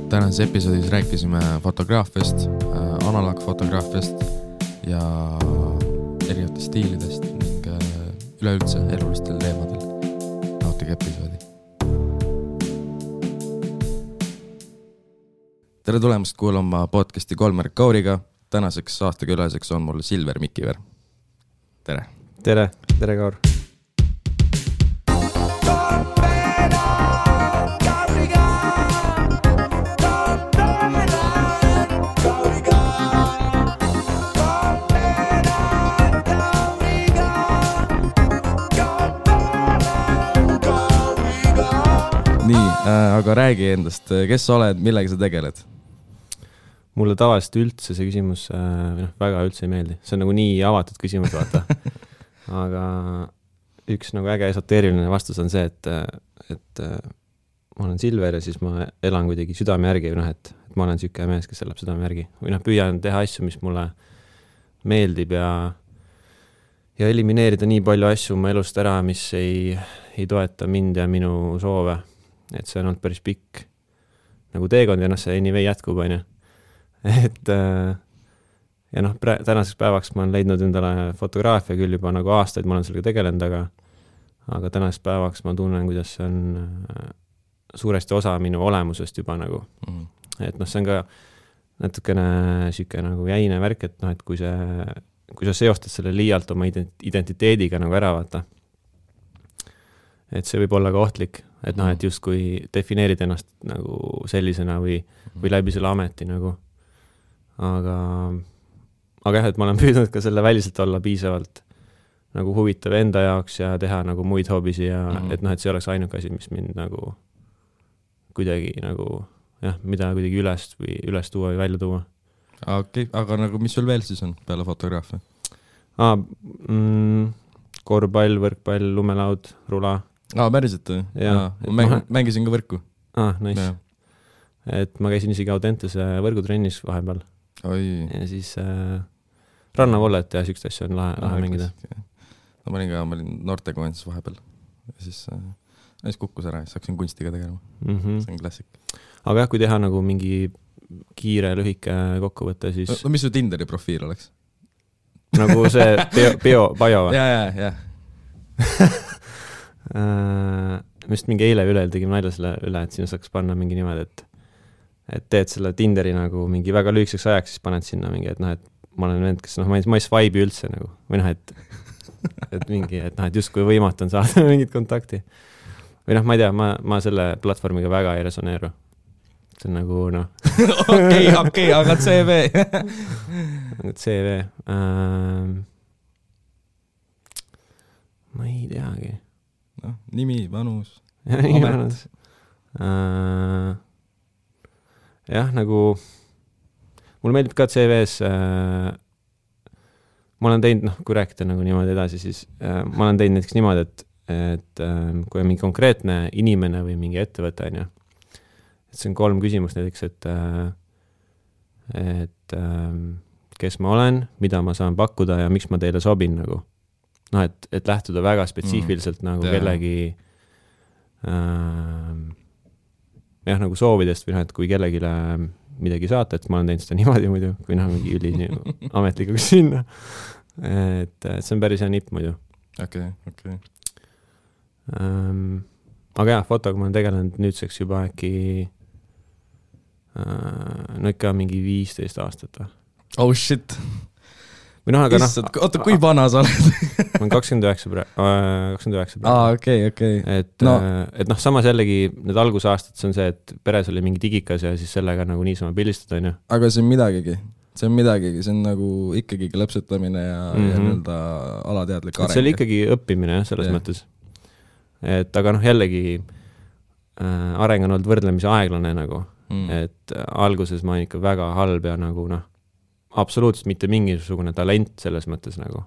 Tänases episoodis rääkisime fotograafiast, analoogfotograafiast ja erinevatest stiilidest ning üleüldse elulistel teemadel. Nautige episoodi. Tere tulemast kuulama podcasti Kolmer Kauriga. Tänaseks aastakülaseks on mul Silver Mikiver. Tere. Tere Kaur. Nii, aga räägi endast, kes sa oled, millega sa tegeled? Mulle tavaliselt üldse see küsimus väga üldse ei meeldi. See on nagu nii avatud küsimus, vaata. Aga üks nagu äge esoteeriline vastus on see, et ma olen Silver ja siis ma elan kuidagi südame järgi, et ma olen süüke mees, kes elab südame järgi. Või püüan teha asju, mis mulle meeldib ja elimineerida nii palju asju oma elust ära, mis ei toeta mind ja minu soove. Et see on olnud päris pikk nagu teekond ja see anyway jätkub, on ju. Et ja tänaseks päevaks ma olen leidnud endale fotograafia küll juba nagu aastaid, ma olen sellega tegelenud, aga tänaseks päevaks ma tunnen, kuidas see on suuresti osa minu olemusest juba nagu. Et see on ka natukene süüke nagu jäine värk, et kui sa seostad selle liialt oma identiteediga nagu ära vaata, et see võib olla ka ohtlik, et et just kui defineerid ennast nagu sellisena või läbi selle ameti nagu. Aga jah, et ma olen püüdnud ka selle väliselt olla piisavalt nagu huvitav enda jaoks ja teha nagu muid hoobisi ja et see oleks ainuke asi, mis mind nagu kuidagi nagu mida kuidagi üles tuua või välja tuua. Okei, aga nagu mis sul veel siis on peale fotograafia? Korvpall, võrkpall, lumelaud, rula. Päriselt või? Ma mängisin ka võrku. Nice. Ja. Et ma käisin isegi Audentese võrgutrennis vahepeal. Oi. Ja siis rannavollet ja sükst asju on lahe mängida. Ma olin noortekoondis vahepeal. Ja siis kukkus ära ja hakkasin kunstiga tegelema. See on klassik. Aga jah, kui teha nagu mingi kiire, lühike kokkuvõte, siis... Mis su Tinderi profiil oleks? Nagu see bio või? Ja. Mist mingi eile üle tegime nalja selle üle, et sinna saaks panna mingi nimed, et teed selle Tinderi nagu mingi väga lühikeseks ajaks, siis paned sinna mingi, et ma olen vend, kes ma ei swipe'i üldse nagu, või et mingi, et just kui võimatu on saada mingit kontakti. Või ma ei tea, ma selle platvormiga väga ei resoneeru. See on nagu, Okei, aga CV. CV. Ma ei teagi. Nimi, vanus. Vanus. Jah, nagu mulle meeldib ka CV-s ma olen teinud, kui rääkida nagu niimoodi edasi, siis ma olen teinud näiteks niimoodi, et kui on mingi konkreetne inimene või mingi ettevõte, on ju, et see on 3 küsimust näiteks, et kes ma olen, mida ma saan pakkuda ja miks ma teile sobin nagu. Et lähtuda väga spetsiifiliselt nagu kellegi nagu soovidest või et kui kellegile midagi saata, et ma olen teinud seda niimoodi muidu, kui mingi üli ametlikuks sinna. Et see on päris hea nipp muidu. Okei. Aga jah, fotoga ma olen tegelenud nüüdseks juba äkki ikka mingi 15 aastat. Oh shit! Oota, kui vana sa oled? Ma olen 29 praegu. Okei. Et samas jällegi need algusaastad, see on see, et peres oli mingi digikas ja siis sellega nagu niisama pildistada, on ju. Aga see on midagigi. See on nagu ikkagi klõpsutamine ja nii-öelda alateadlik areng. See oli ikkagi õppimine selles mõttes. Et aga jällegi areng on olnud võrdlemisi aeglane nagu. Et alguses ma olen ikka väga halb ja nagu absoluutselt mitte mingisugune talent selles mõttes nagu.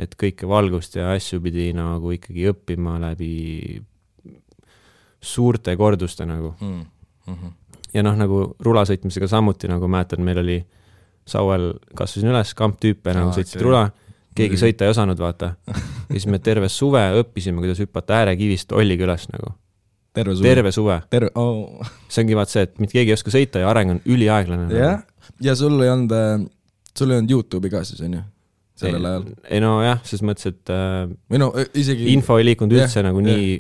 Et kõike valgust ja asju pidi nagu ikkagi õppima läbi suurte korduste nagu. Ja nagu rulasõitmisega samuti nagu mäletan, meil oli Sauel kasvasin üles, kamptüüpe nagu sõitsid rula, keegi sõita ei osanud vaata. Ja siis me terve suve õppisime, kuidas hüppata äärekivist Ollikülas nagu. terve suve. Oh. See ongi vaat see, et mitte keegi ei oska sõita ja areng on üliaeglane. Jah, ja sul ei olnud YouTube'i ka siis, on ju? Sellel ajal. Ei no jah, selles mõttes, et isegi... info ei liikunud üldse nagu nii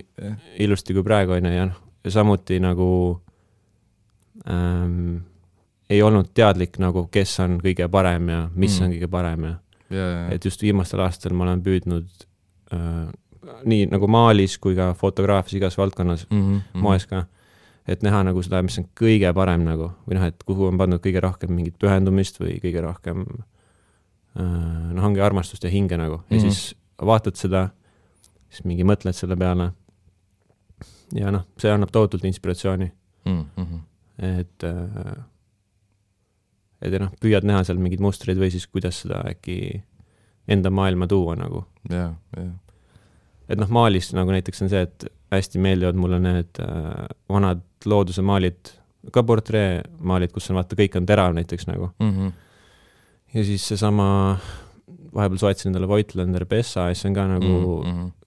ilusti kui praegu on ja samuti nagu ei olnud teadlik nagu, kes on kõige parem ja mis on kõige parem ja et just viimastel aastatel ma olen püüdnud nii nagu maalis kui ka fotograafias igas valdkonnas, moes ka, et näha nagu seda, mis on kõige parem nagu, või et kuhu on pandud kõige rohkem mingit pühendumist või kõige rohkem ongi armastust ja hinge nagu. Ja siis vaatad seda, siis mingi mõtled selle peale. Ja see annab tohutult inspiratsiooni. Et püüad näha seal mingid mustreid või siis kuidas seda äkki enda maailma tuua nagu. Et maalis nagu näiteks on see, et hästi meeldivad mulle need vanad looduse maalid, ka portree maalid, kus on vaata, kõik on terav näiteks nagu. Ja siis see sama, vahepeal soetasin endale Voigtlander Bessa, see on ka nagu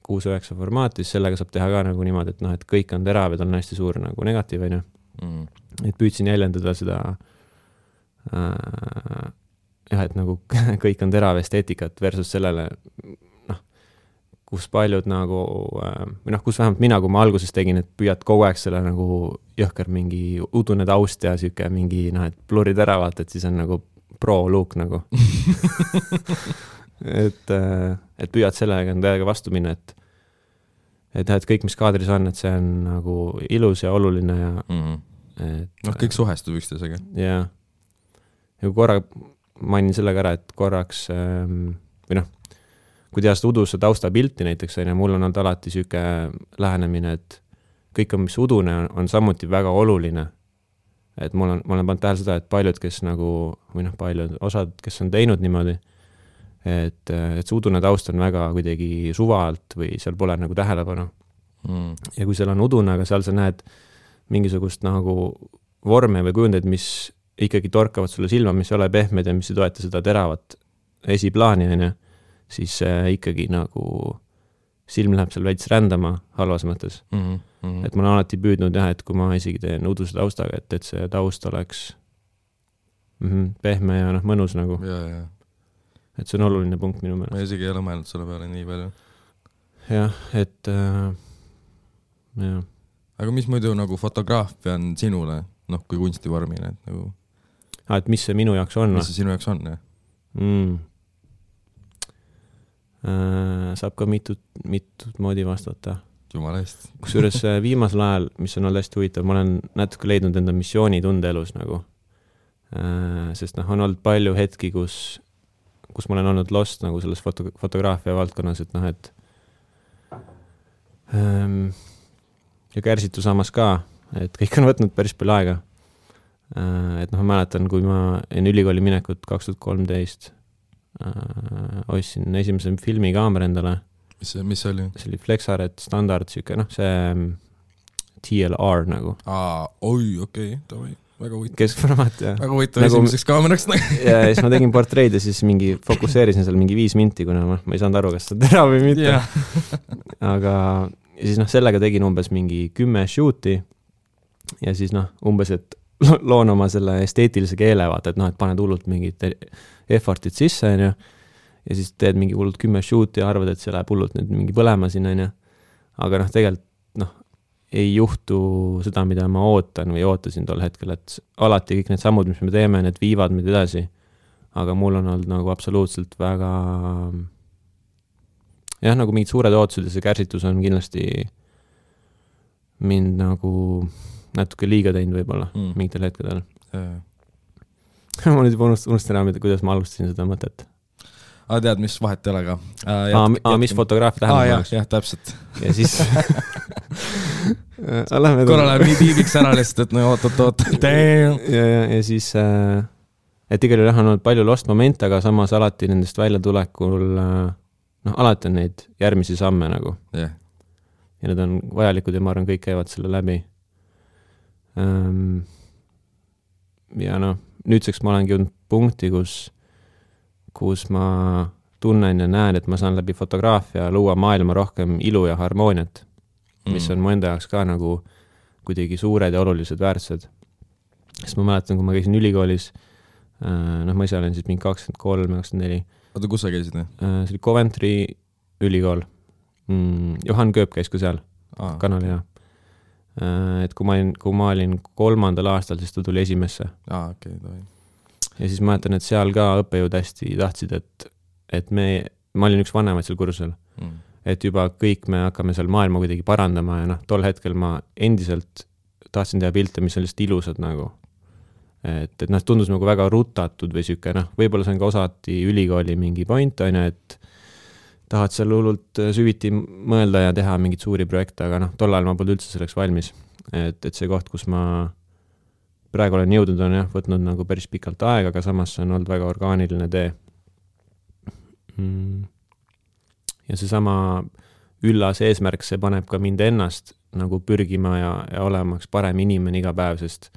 6-9 formaat, siis sellega saab teha ka nagu niimoodi, et kõik on terav ja tal on hästi suur nagu negatiiv, on ju. Et püüdsin jäljendada seda et nagu kõik on terav esteetikat versus sellele, kus paljud nagu, või kus vähemalt mina, kui ma alguses tegin, et püüad kogu aeg selle nagu jõhker mingi udune taust ja siuke mingi, et blurri teravad, et siis on nagu pro-look nagu. et püüad sellega täiega vastu minna, et kõik, mis kaadris on, et see on nagu ilus ja oluline ja kõik suhestub üksteisega. Ja korra mainin sellega ära, et korraks või kui teha seda uduse tausta pilti näiteks, mul on olnud alati siuke lähenemine, et kõik on, mis udune on samuti väga oluline. Et ma olen pannud tähele seda, et paljud, kes nagu, või paljud osad, kes on teinud niimoodi, et see udune taust on väga kuidagi suvalt või seal pole nagu tähelepanu. Ja kui seal on udune, aga seal sa näed mingisugust nagu vorme või kujundeid, mis ikkagi torkavad sulle silma, mis ei ole pehmed ja mis ei toeta seda teravat esiplaani, siis ikkagi nagu silm läheb seal veits rändama halvas mõttes. Et ma olen alati püüdnud et kui ma isegi teen uduse taustaga, et see taust oleks pehme ja mõnus nagu. Et see on oluline punkt minu meelest. Ma isegi ei ole mõelnud selle peale nii palju. Jah, et jah. Aga mis muidu nagu fotograafia on sinule, kui kunstivormine, et nagu... et mis see minu jaoks on? Mis see sinu jaoks on, jah? Saab ka mitut moodi vastata. Jumala eest. Kusjuures viimasel ajal, mis on olnud hästi huvitav, ma olen natuke leidnud enda missioonitunde elus nagu. Sest on olnud palju hetki, kus ma olen olnud lost nagu selles fotograafia valdkonnas, et ja kärsitu samas ka, et kõik on võtnud päris palju aega. Et ma mäletan, kui ma enne ülikooli minekut 2013 ostsin esimese filmikaamera endale. Mis oli? See oli Flexaret standard, see TLR nagu. Okei, väga huvitav. Keskformaat, jah. Väga huvitav esimeseks kaameraks. Ja siis ma tegin portreid ja siis fokusseerisin seal mingi 5 minti, kuna ma ei saanud aru, kas see tera või mitte. Aga siis sellega tegin umbes mingi 10 shooti ja siis umbes, et loon oma selle esteetilise keele, vaata, et paned hullult mingid effortid sisse, ja siis teed mingi hullult 10 shooti ja arvad, et see läheb hullult nüüd mingi põlema sinna, aga tegelikult ei juhtu seda, mida ma ootan või ootasin tol hetkel, et alati kõik need sammud, mis me teeme, need viivad meid edasi, aga mul on olnud nagu absoluutselt väga nagu mingid suured ootused ja see kärsitus on kindlasti mind nagu natuke liiga teinud võib-olla mingitel hetkedel. Ma nüüd juba unustan ära, kuidas ma alustasin seda mõtet. Tead, mis vahet ei ole ka? Mis fotograafia tähendab? Jah, täpselt. Ja siis... korra läheb nii tiibiks ära lihtsalt, et oot. Ja siis... Et igal juhul on olnud palju lost momente, aga samas alati nendest välja tulekul... alati on neid järgmisi samme nagu. Ja need on vajalikud ja ma arvan, kõik käivad selle läbi. Ja nüüdseks ma olengi jõudnud punkti, kus ma tunnen ja näen, et ma saan läbi fotograafia luua maailma rohkem ilu ja harmooniat. mis on mu enda jaoks ka nagu kuidagi suured ja olulised väärtused. Sest ma mäletan, kui ma käisin ülikoolis, ma ise olen siis mingi 23-24. Oota, kus sa käisid? See oli Coventry ülikool. Johan Kööp käis ka seal, kanali, jah. Et kui ma olin 3. aastal, siis ta tuli esimesse. Okay, ja siis ma mäletan, et seal ka õppejõud hästi tahtsid, et ma olin üks vanemaid seal kursusel, et juba kõik me hakkame seal maailma kuidagi parandama ja tol hetkel ma endiselt tahtsin teha pilte, mis on lihtsalt ilusad nagu. Et tundus nagu väga rutatud või süke, võib-olla see on ka osati ülikooli mingi point, et tahad seal hullult süviti mõelda ja teha mingit suuri projekte, aga tol ajal ma polnud üldse selleks valmis. Et see koht, kus ma praegu olen jõudnud, on võtnud nagu päris pikalt aega, aga samas on olnud väga orgaaniline tee. Ja see sama üllas eesmärk, see paneb ka mind ennast nagu pürgima ja olemaks parem inimene iga päev, sest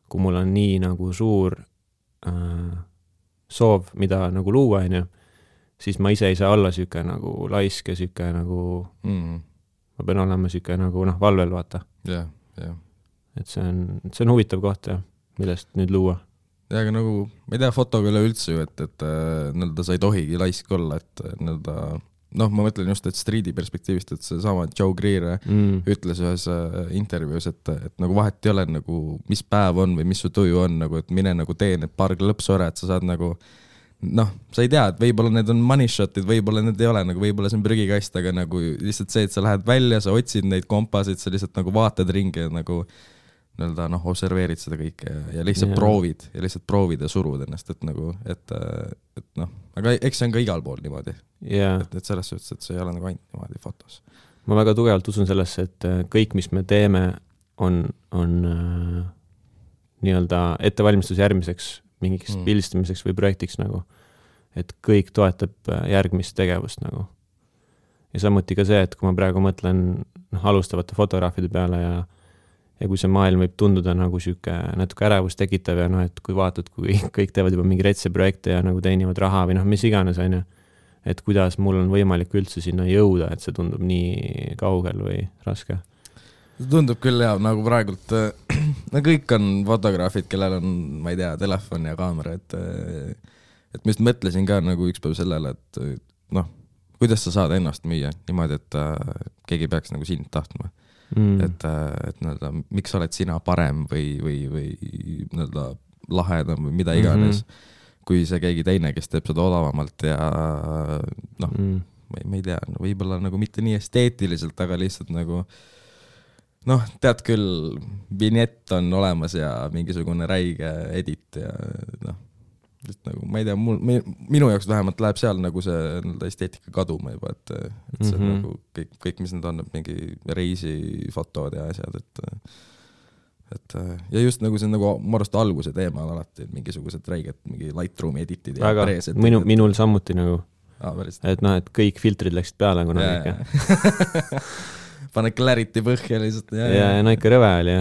kui mul on nii nagu suur soov, mida nagu luua, siis ma ise ei saa olla süke nagu laisk ja süke nagu ma pean olema süke nagu valvel, vaata. Yeah. Et see on huvitav koht, millest nüüd luua. Ja, aga nagu, ma ei tea, fotoga üle üldse ju, et sa ei tohigi laisk olla, et ma mõtlen just, et streedi perspektiivist, et see sama Joe Greer ütles ühes intervjuus, et nagu vahet ei ole nagu, mis päev on või mis su tuju on, nagu, et mine nagu tee need paar lõpsore, et sa saad nagu sa ei tea, et võib-olla need on money shotid, võib-olla need ei ole, nagu võib-olla see on prügikast, aga nagu lihtsalt see, et sa lähed välja, sa otsid neid kompasid, sa lihtsalt nagu vaatad ringi ja nagu observeerid seda kõike ja lihtsalt proovid ja surud ennast, et nagu, et aga eks see on ka igal pool niimoodi. Et selles suhtes, et see ei ole nagu ainult niimoodi fotos. Ma väga tugevalt usun sellesse, et kõik, mis me teeme, on nii-öelda ettevalmistus järgmiseks mingiks pildistamiseks või projektiks nagu. Et kõik toetab järgmist tegevust nagu. Ja samuti ka see, et kui ma praegu mõtlen alustavate fotograafide peale ja kui see maailm võib tunduda nagu süke natuke ärevust tekitav ja et kui vaatad, kui kõik teevad juba mingi retse projekte ja nagu teenivad raha või mis iganes on, et kuidas mul on võimalik üldse sinna jõuda, et see tundub nii kaugel või raske. See tundub küll nagu praegult kõik on fotograafid, kellel on, ma ei tea, telefon ja kaamera, et ma just mõtlesin ka nagu üks päev sellele, et kuidas sa saad ennast müüa niimoodi, et keegi peaks nagu sind tahtma. Et miks oled sina parem või lahedam või mida iganes, kui see keegi teine, kes teeb seda odavamalt ja ma ei tea, võib-olla nagu mitte nii esteetiliselt, aga lihtsalt nagu tead küll, vignett on olemas ja mingisugune räige edit ja nagu, ma ei tea, minu jaoks vähemalt läheb seal nagu see esteetika kaduma juba, et see nagu kõik, mis need on, mingi reisifotod ja asjad, et ja just nagu see nagu ma arvast alguse teema on alati mingisugused räiged, mingi Lightroomi editid ja preset. Minul samuti nagu, et kõik filtrid läksid peale kunagi ikka. Pane clarity põhja lihtsalt. Ja ikka rõve oli,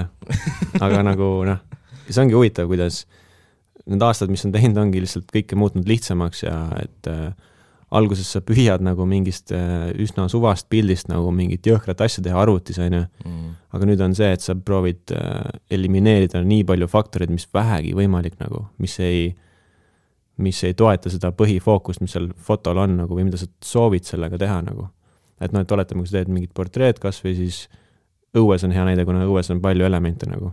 aga nagu see ongi huvitav, kuidas need aastad, mis on teinud, ongi lihtsalt kõike muutnud lihtsamaks ja et alguses sa püüad nagu mingist üsna suvast pildist nagu mingit jõhkrat asja teha arvutis, aga nüüd on see, et sa proovid elimineerida nii palju faktoreid, mis vähegi võimalik nagu, mis ei toeta seda põhifookust, mis seal fotol on nagu, või mida sa soovid sellega teha nagu. Et et oletame, kui sa teed mingit portreed kas või siis õues on hea näide, kuna õues on palju elemente nagu.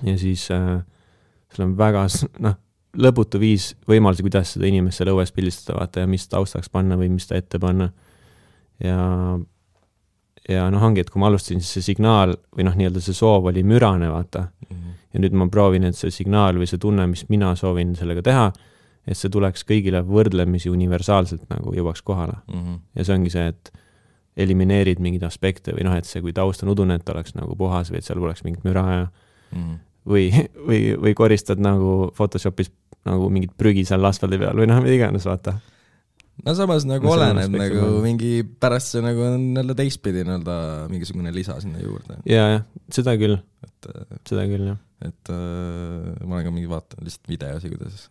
Ja siis seal on väga lõputu viis võimalusi, kuidas seda inimest seal õues pildistada, vaata, ja mis taustaks panna või mis ta ette panna. Ja ongi, et kui ma alustasin, siis see signaal või nii-öelda see soov oli mürane, vaata. Ja nüüd ma proovin, et see signaal või see tunne, mis mina soovin sellega teha, et see tuleks kõigile võrdlemisi universaalselt nagu jõuaks kohale. Ja see ongi see, et elimineerid mingid aspekte või et see, kui taust on udune, et oleks nagu puhas või et seal oleks mingit müra ja või koristad nagu Photoshopis nagu mingid prügi seal asfaldi peal või mida iganes, vaata. No samas nagu oleneb nagu mingi pärast see nagu on teistpidi mingisugune lisa sinna juurde. Ja, seda küll. Seda küll, jah. Et ma olen ka mingi vaatan lihtsalt videosi, kuidas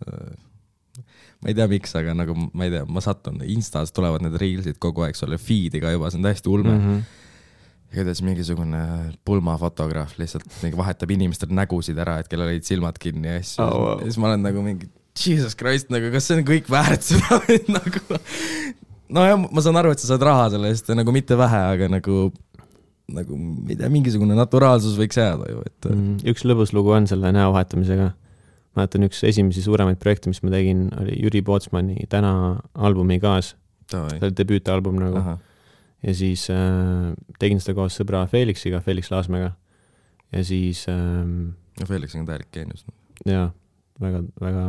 ma ei tea miks, aga nagu ma ei tea, ma satun Instas tulevad need reelsid kogu aeg sulle feed'i ka juba, see on täiesti ulme. kuidas mingisugune pulmafotograaf lihtsalt mingi vahetab inimestel nägusid ära, et kellel olid silmad kinni ja siis ma olen nagu mingi Jesus Christ, nagu kas see on kõik väärt seda nagu no ja ma saan aru, et sa saad raha selle eest ja nagu mitte vähe, aga nagu mingisugune naturaalsus võiks jääda ju, et üks lõbus lugu on selle näo vahetamisega. Ma mäletan, üks esimesi suuremaid projekte, mis ma tegin, oli Jüri Pootsmani Täna albumi kaas. See oli debüütalbum nagu. Aha. Ja siis tegin seda koos sõbra Felixiga, Felix Laasmäega. Ja siis Felix on täielik geenius. Jaa, väga, väga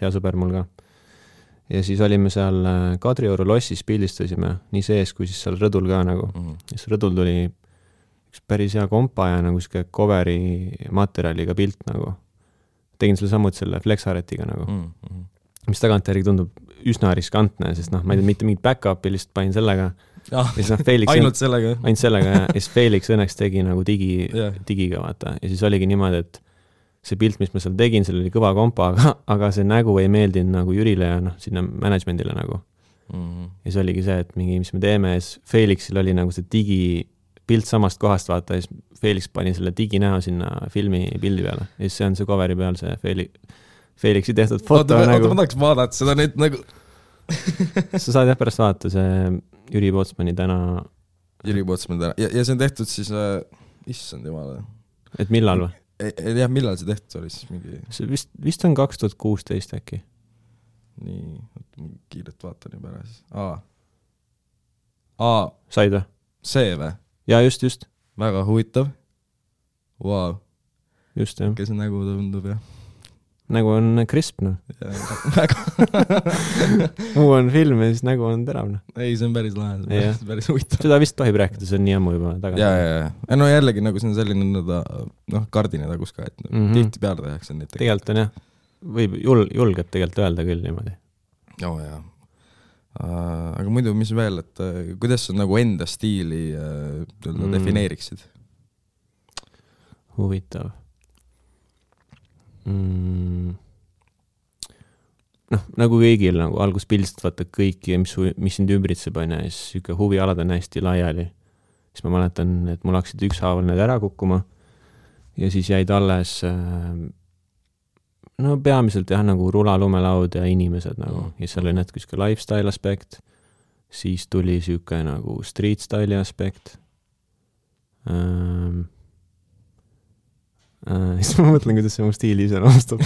hea sõber mul ka. Ja siis olime seal Kadrioru lossis, pildistasime nii sees kui siis seal rõdul ka nagu. Ja siis rõdul tuli üks päris hea kompa ja nagu siuke coveri materjaliga pilt nagu. Tegin selle samuti selle Flexaretiga nagu. Mis tagantjärgi tundub üsna riskantne, sest ma ei tea, mitte mingit back-upi lihtsalt panin sellega. Ainult sellega. Ainult sellega ja siis Felix õnneks tegi nagu digiga vaata. Ja siis oligi niimoodi, et see pilt, mis ma seal tegin, seal oli kõva kompa, aga see nägu ei meeldinud nagu Jürile ja sinna managementile nagu. Ja siis oligi see, et mingi, mis me teeme, ja siis Felixil oli nagu see digipilt samast kohast vaata, ja siis Felix pani selle diginäo sinna filmi pildi peale. Ja siis see on see coveri peal see Felixi tehtud foto nagu. Ma tahaks vaadata seda nüüd nagu. Sa saad jah pärast vaadata see Jüri Pootsmani Täna. Jüri Pootsmani Täna. Ja see on tehtud siis, issand jumala. Et millal või? Jah, millal see tehtud oli siis mingi? See vist on 2016 äkki. Nii, kiiret vaatan juba ära siis. Said või? See või? Ja just. Väga huvitav. Wow. Just jah. Kes nägu tundub jah? Nägu on crisp, noh. Muu on film ja siis nägu on terav, noh. Ei, see on päris lahe, see on päris huvitav. Seda vist tohib rääkida, see on nii ammu juba tagasi. Ja. No jällegi nagu see on selline kardine tagus ka, et tihti peale tehakse neid. Tegelikult on jah. Võib julgeb tegelikult öelda küll niimoodi. Joo, jah. Aga muidu, mis veel, et kuidas sa nagu enda stiili defineeriksid? Huvitav. Nagu kõigil nagu algus pildistad vaata kõiki, mis sind ümbritseb on ja siis siuke huvialad on hästi laiali. Siis ma mäletan, et mul hakkasid ükshaaval need ära kukkuma ja siis jäid alles peamiselt jah nagu rula, lumelaud ja inimesed nagu ja seal oli natuke siuke lifestyle aspekt, siis tuli siuke nagu street style'i aspekt. Siis ma mõtlen, kuidas see mu stiili ise nõustab.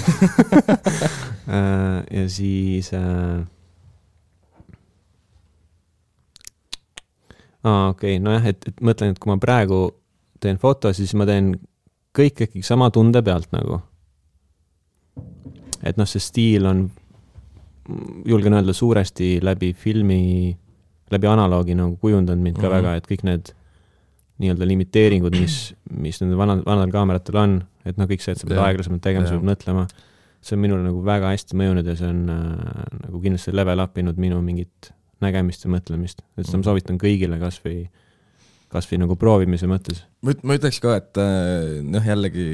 Ja siis okei, nojah, et mõtlen, et kui ma praegu teen foto, siis ma teen kõik äkki sama tunde pealt nagu. Et see stiil on, julgen öelda, suuresti läbi filmi, läbi analoogi nagu kujundanud mind ka väga, et kõik need nii-öelda limiteeringud, mis nende vanadel kaameratel on, et kõik see, et sa pead aeglasemalt tegema, sa pead mõtlema. See on minule nagu väga hästi mõjunud ja see on nagu kindlasti level upinud minu mingit nägemist ja mõtlemist. Et seda ma soovitan kõigile kasvõi nagu proovimise mõttes. Ma ütleks ka, et jällegi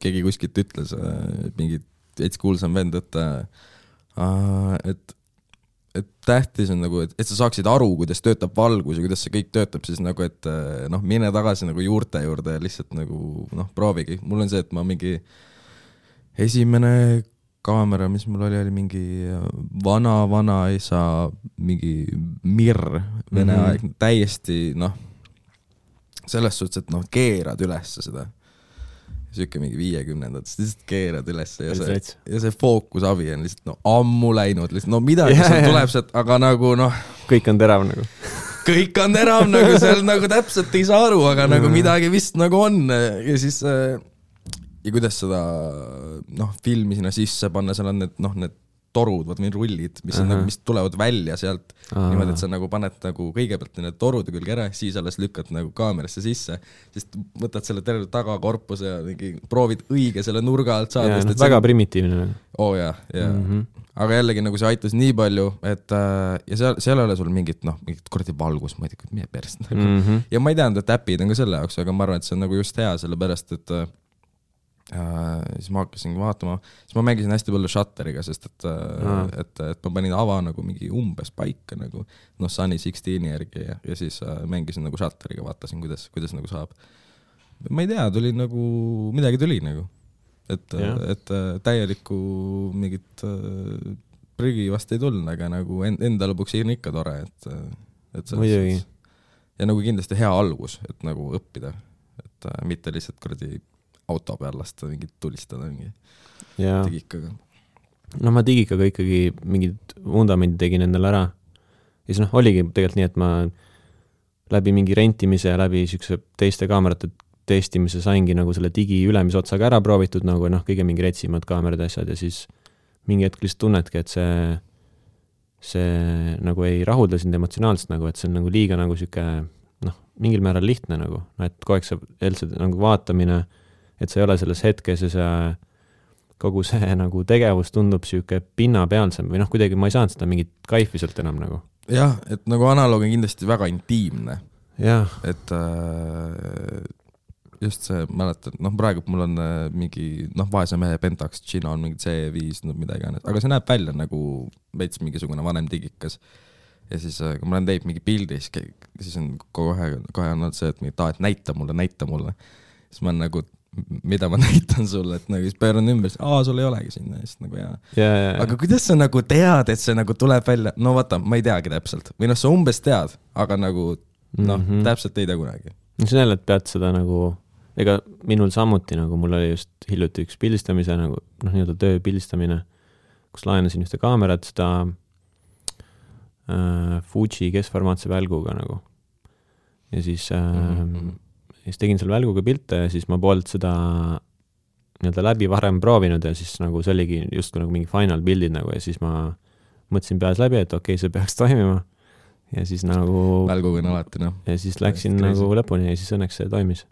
keegi kuskilt ütles mingit veits kuulsam vend, et tähtis on nagu, et sa saaksid aru, kuidas töötab valgus ja kuidas see kõik töötab, siis nagu, et mine tagasi nagu juurte juurde ja lihtsalt nagu, proovigi. Mul on see, et ma mingi esimene kaamera, mis mul oli mingi vana isa, mingi Mir, Vene aeg, täiesti, selles suhtes, et keerad üles seda. Siuke mingi 50-ndat, siis lihtsalt keerad üles ja see fookusabi on lihtsalt ammu läinud, lihtsalt midagi seal tuleb sealt, aga nagu kõik on terav nagu. Kõik on terav nagu, seal nagu täpselt ei saa aru, aga nagu midagi vist nagu on ja siis ja kuidas seda filmi sinna sisse panna, seal on need torud, või rullid, mis on nagu, mis tulevad välja sealt niimoodi, et sa nagu paned nagu kõigepealt need torude külge ära, siis alles lükkad nagu kaamerasse sisse, siis võtad selle terve tagakorpuse ja mingi proovid õige selle nurga alt saada. Väga primitiivne. Jah. Aga jällegi nagu see aitas nii palju, et ja seal ei ole sul mingit kordi valgus, ma ei tea, meie perst nagu. Ja ma ei teadnud, et äpid on ka selle jaoks, aga ma arvan, et see on nagu just hea, sellepärast, et siis ma hakkasin vaatama, siis ma mängisin hästi palju Shutteriga, sest et ma panin ava nagu mingi umbes paika nagu Sunny 16 järgi ja siis mängisin nagu Shutteriga, vaatasin, kuidas nagu saab. Ma ei tea, tuli nagu, midagi tuli nagu, et täielikku mingit prügi vast ei tulnud, aga nagu enda lõpuks on ikka tore, et muidugi. Ja nagu kindlasti hea algus, et nagu õppida, et mitte lihtsalt kuradi auto peal lasta mingit tulistada mingi digikaga. No ma digikaga ikkagi mingid vundamendid tegin endale ära. Ja siis oligi tegelikult nii, et ma läbi mingi rentimise ja läbi siukse teiste kaamerate testimise saingi nagu selle digi ülemise otsaga ära proovitud, nagu kõige mingi retsimad kaamerad asjad ja siis mingi hetk lihtsalt tunnedki, et see nagu ei rahulda sind emotsionaalselt nagu, et see on nagu liiga nagu siuke mingil määral lihtne nagu, et kogu aeg see nagu vaatamine, et sa ei ole selles hetkes ja see kogu see nagu tegevus tundub siuke pinnapealsem või kuidagi ma ei saanud seda mingit kaifi sealt enam nagu. Jah, et nagu analoog on kindlasti väga intiimne. Jah. Et just see, mäletad, praegu mul on mingi, vaese mehe Pentax, Gino on mingi C5, midagi, aga see näeb välja nagu veits mingisugune vanem digikas. Ja siis, kui ma olen teinud mingi pildi, siis on kohe on see, et näita mulle. Siis ma on nagu, mida ma näitan sulle, et nagu siis pööran ümber, sul ei olegi sinna. Siis nagu aga kuidas sa nagu tead, et see nagu tuleb välja? No vaata, ma ei teagi täpselt. Või sa umbes tead, aga nagu, täpselt ei tea kunagi. See on jälle, et pead seda nagu, ega minul samuti, nagu mul oli just hiljuti üks pildistamise, nagu nii-öelda töö pildistamine, kus laenasin ühte kaamerat, seda Fuji keskformaatse välguga nagu. Ja siis tegin seal välguga pilte ja siis ma poolt seda nii-öelda läbi varem proovinud ja siis nagu see oligi just nagu mingi final bildid nagu ja siis ma mõtlesin peas läbi, et okei, see peaks toimima ja siis nagu välguga on alati, ja siis läksin nagu lõpuni ja siis õnneks see toimis.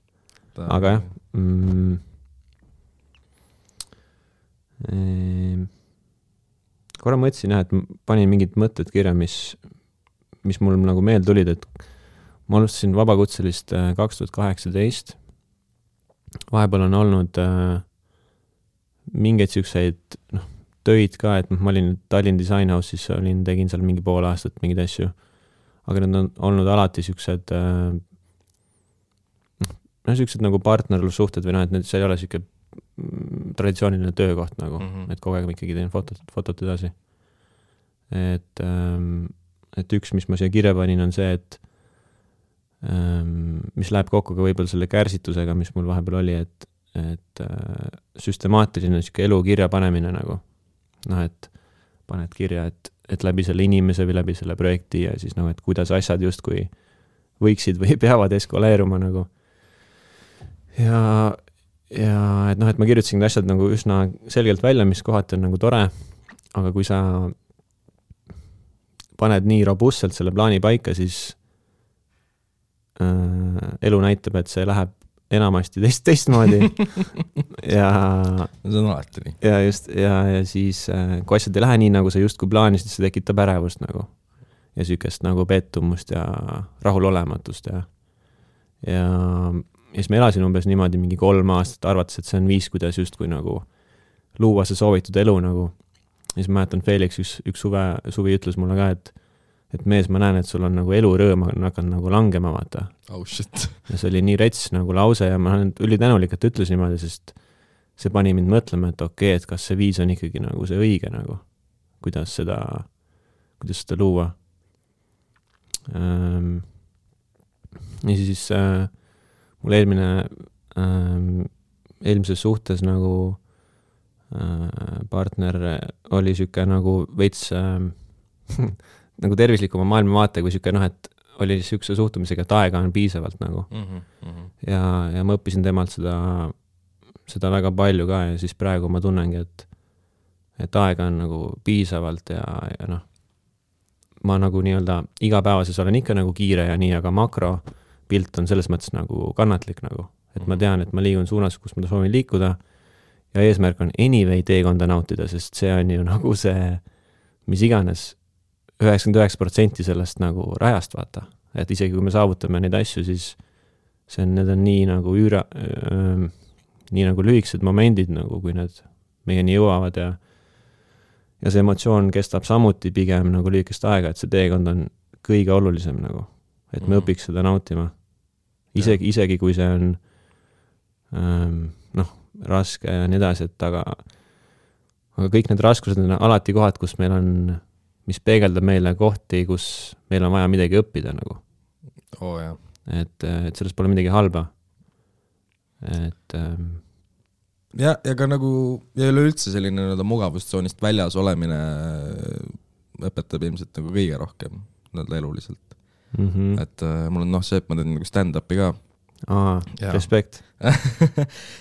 Aga jah, korra mõtlesin jah, et panin mingid mõtted kirja, mis mul nagu meel tulid, et ma alustasin vabakutselist 2018. Vahepeal on olnud mingeid siukseid töid ka, et ma olin Tallinn Design House'is, tegin seal mingi pool aastat mingeid asju, aga need on olnud alati siuksed siuksed nagu partnerlussuhted või et see ei ole siuke traditsiooniline töökoht nagu, et kogu aeg ma ikkagi teen fotot edasi. Et üks, mis ma siia kirja panin, on see, et mis läheb kokku ka võib-olla selle kärsitusega, mis mul vahepeal oli, et süstemaatiline siuke elu kirja panemine nagu. Et paned kirja, et läbi selle inimese või läbi selle projekti ja siis et kuidas asjad justkui võiksid või peavad eskaleeruma nagu. Ja et et ma kirjutasin need asjad nagu üsna selgelt välja, mis kohati on nagu tore, aga kui sa paned nii robustselt selle plaani paika, siis elu näitab, et see läheb enamasti teistmoodi ja see on alati nii. Ja just, ja siis kui asjad ei lähe nii, nagu sa justkui plaanisid, see tekitab ärevust nagu ja sükest nagu pettumust ja rahulolematust ja siis ma elasin umbes niimoodi mingi 3 aastat, arvates, et see on viis, kuidas justkui nagu luua see soovitud elu nagu. Ja siis ma mäletan, Felix üks suvi ütles mulle ka, et mees, ma näen, et sul on nagu elurõõm on hakanud nagu langema, vaata. Oh shit. Ja see oli nii rets nagu lause ja ma olen ülitänulik, et ütles niimoodi, sest see pani mind mõtlema, et okei, et kas see viis on ikkagi nagu see õige nagu, kuidas seda luua. Ja siis mul eelmises suhtes nagu partner oli siuke nagu veits nagu tervislikuma maailmavaate, kui siuke et oli siukse suhtumisega, et aega on piisavalt nagu. Ja ma õppisin temalt seda väga palju ka ja siis praegu ma tunnengi, et aega on nagu piisavalt ja ma nagu nii-öelda igapäevases olen ikka nagu kiire ja nii, aga makropilt on selles mõttes nagu kannatlik nagu, et ma tean, et ma liigun suunas, kus ma soovin liikuda ja eesmärk on anyway teekonda nautida, sest see on ju nagu see, mis iganes 99% sellest nagu rajast vaata, et isegi kui me saavutame neid asju, siis need on nii nagu nii nagu lühikesed momendid nagu, kui need meieni jõuavad ja see emotsioon kestab samuti pigem nagu lühikest aega, et see teekond on kõige olulisem nagu, et me õpiks seda nautima. Isegi kui see on raske ja nii edasi, et aga kõik need raskused on alati kohad, kus meil on, mis peegeldab meile kohti, kus meil on vaja midagi õppida nagu. Jah. Et sellest pole midagi halba. Et ja ka nagu ja üleüldse selline mugavustsoonist väljas olemine õpetab ilmselt nagu kõige rohkem eluliselt. Et mul on see, et ma teen nagu stand-upi ka. Respekt.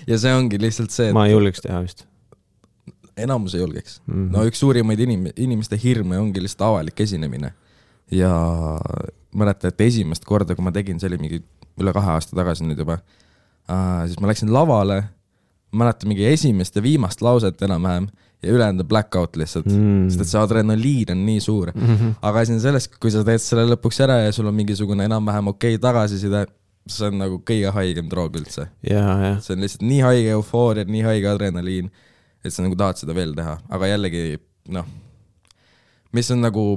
ja see ongi lihtsalt see, et ma ei julgeks teha vist. Enamus ei julgeks. No üks suurimaid inimeste hirme ongi lihtsalt avalik esinemine. Ja mäletan, et esimest korda, kui ma tegin, see oli mingi üle 2 aasta tagasi nüüd juba, siis ma läksin lavale, mäletan mingi esimest ja viimast lauset enam-vähem ja ülejäänud blackout lihtsalt, sest et see adrenaliin on nii suur. Aga siin sellest, kui sa teed selle lõpuks ära ja sul on mingisugune enam-vähem okei tagasiside, see on nagu kõige haigem droog üldse. Ja. See on lihtsalt nii haige eufooria, nii haige adrenaliin, et sa nagu tahad seda veel teha. Aga jällegi, mis on nagu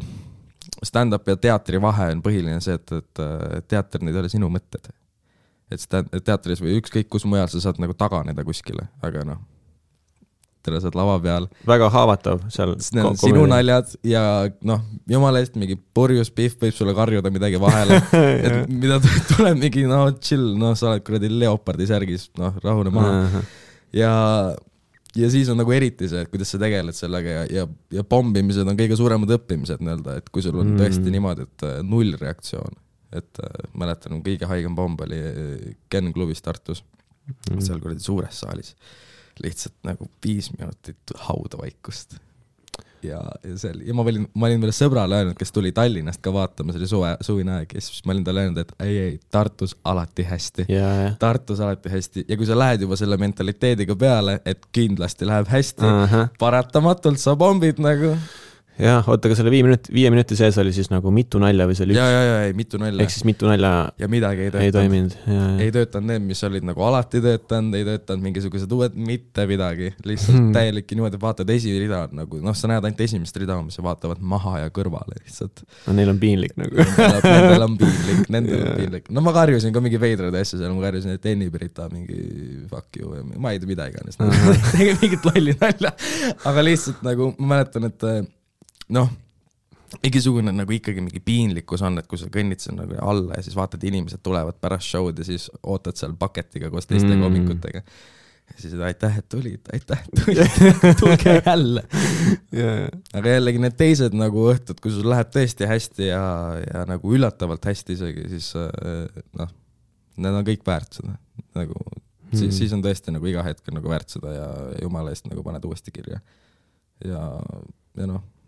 stand-up ja teatri vahe on põhiline see, et teater need ei ole sinu mõtted. Et teatris või ükskõik kus mujal sa saad nagu taganeda kuskile, aga tere saad lava peal. Väga haavatav seal. Sinu naljad ja jumala eest mingi purjus pihv võib sulle karjuda midagi vahele. Et mida tuleb mingi, chill, sa oled kuradi leopardi särgis, rahune maha. Ja siis on nagu eriti see, et kuidas sa tegeled sellega ja pombimised on kõige suuremad õppimised, et kui sul on tõesti niimoodi, et 0 reaktsioon. Et mäletan, kõige haigem pomb oli Ken klubis Tartus, seal kuradi suures saalis. Lihtsalt nagu 5 minutit haudavaikust. Ja ma olin veel sõbrale öelnud, kes tuli Tallinnast ka vaatama, see oli suvine aeg, ja siis ma olin talle öelnud, et ei, Tartus alati hästi. Tartus alati hästi. Ja kui sa lähed juba selle mentaliteediga peale, et kindlasti läheb hästi, paratamatult sa bombid nagu. Ja, oota, ka selle 5 minuti sees oli siis nagu mitu nalja või see oli üks? Ei, mitu nalja. Ehk siis mitu nalja ja midagi ei toiminud. Ei töötanud need, mis olid nagu alati töötanud, ei töötanud mingisugused uued, mitte midagi. Lihtsalt täielikki niimoodi vaatad esimene rida, nagu, sa näed ainult esimest rida, mis vaatavad maha ja kõrvale lihtsalt. No neil on piinlik nagu. Nendel on piinlik. No ma karjusin ka mingi veidrad asja seal, ma karjusin, et Enni Pirita mingi fuck you, ma ei tea mida iganes. Tegin mingit lolli nalja, aga lihtsalt nagu ma mäletan, et mingisugune nagu ikkagi mingi piinlikkus on, et kui sa kõnnid seal nagu alla ja siis vaatad, inimesed tulevad pärast show'd ja siis ootad seal paketiga koos teiste komikutega. Ja siis aitäh, et tulid, tulge jälle. Aga jällegi need teised nagu õhtud, kui sul läheb tõesti hästi ja nagu üllatavalt hästi isegi, siis need on kõik väärt seda. Nagu, siis on tõesti nagu iga hetk nagu väärt seda ja jumala eest nagu paned uuesti kirja. Ja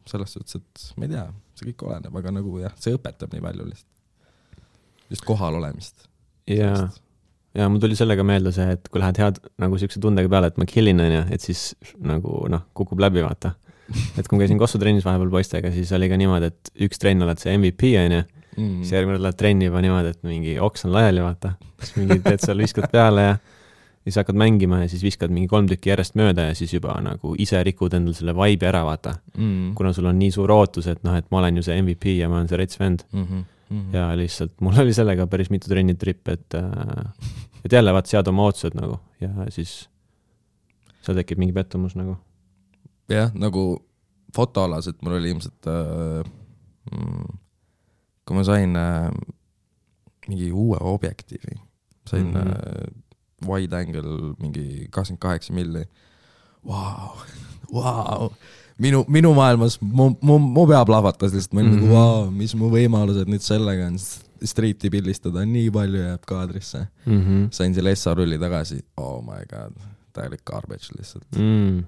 selles suhtes, et ma ei tea, see kõik oleneb, aga nagu see õpetab nii palju lihtsalt. Just kohal olemist. Ja mul tuli sellega meelde see, et kui lähed head nagu siukse tundega peale, et ma killin, et siis nagu kukub läbi, vaata. Et kui ma käisin Kossu trennis vahepeal poistega, siis oli ka niimoodi, et üks trenn oled see MVP, siis järgmine lähed trenni juba niimoodi, et mingi oks on laiali, vaata. Siis mingi teed seal viskad peale ja siis hakkad mängima ja siis viskad mingi 3 tükki järjest mööda ja siis juba nagu ise rikud endal selle vibe'i ära, vaata. Kuna sul on nii suur ootus, et ma olen ju see MVP ja ma olen see rets vend. Ja lihtsalt mul oli sellega päris mitu trennitripp, et jälle vaat sead oma ootused nagu ja siis seal tekib mingi pettumus nagu. Jah, nagu fotoalas, et mul oli ilmselt kui ma sain mingi uue objektiivi, sain wide angle mingi 28 milli. Wow. Minu maailmas mu pea plahvatas lihtsalt, ma olin nagu wow, mis mu võimalused nüüd sellega on streeti pildistada, nii palju jääb kaadrisse. Sain selle SA-rulli tagasi, oh my god, täielik garbage lihtsalt.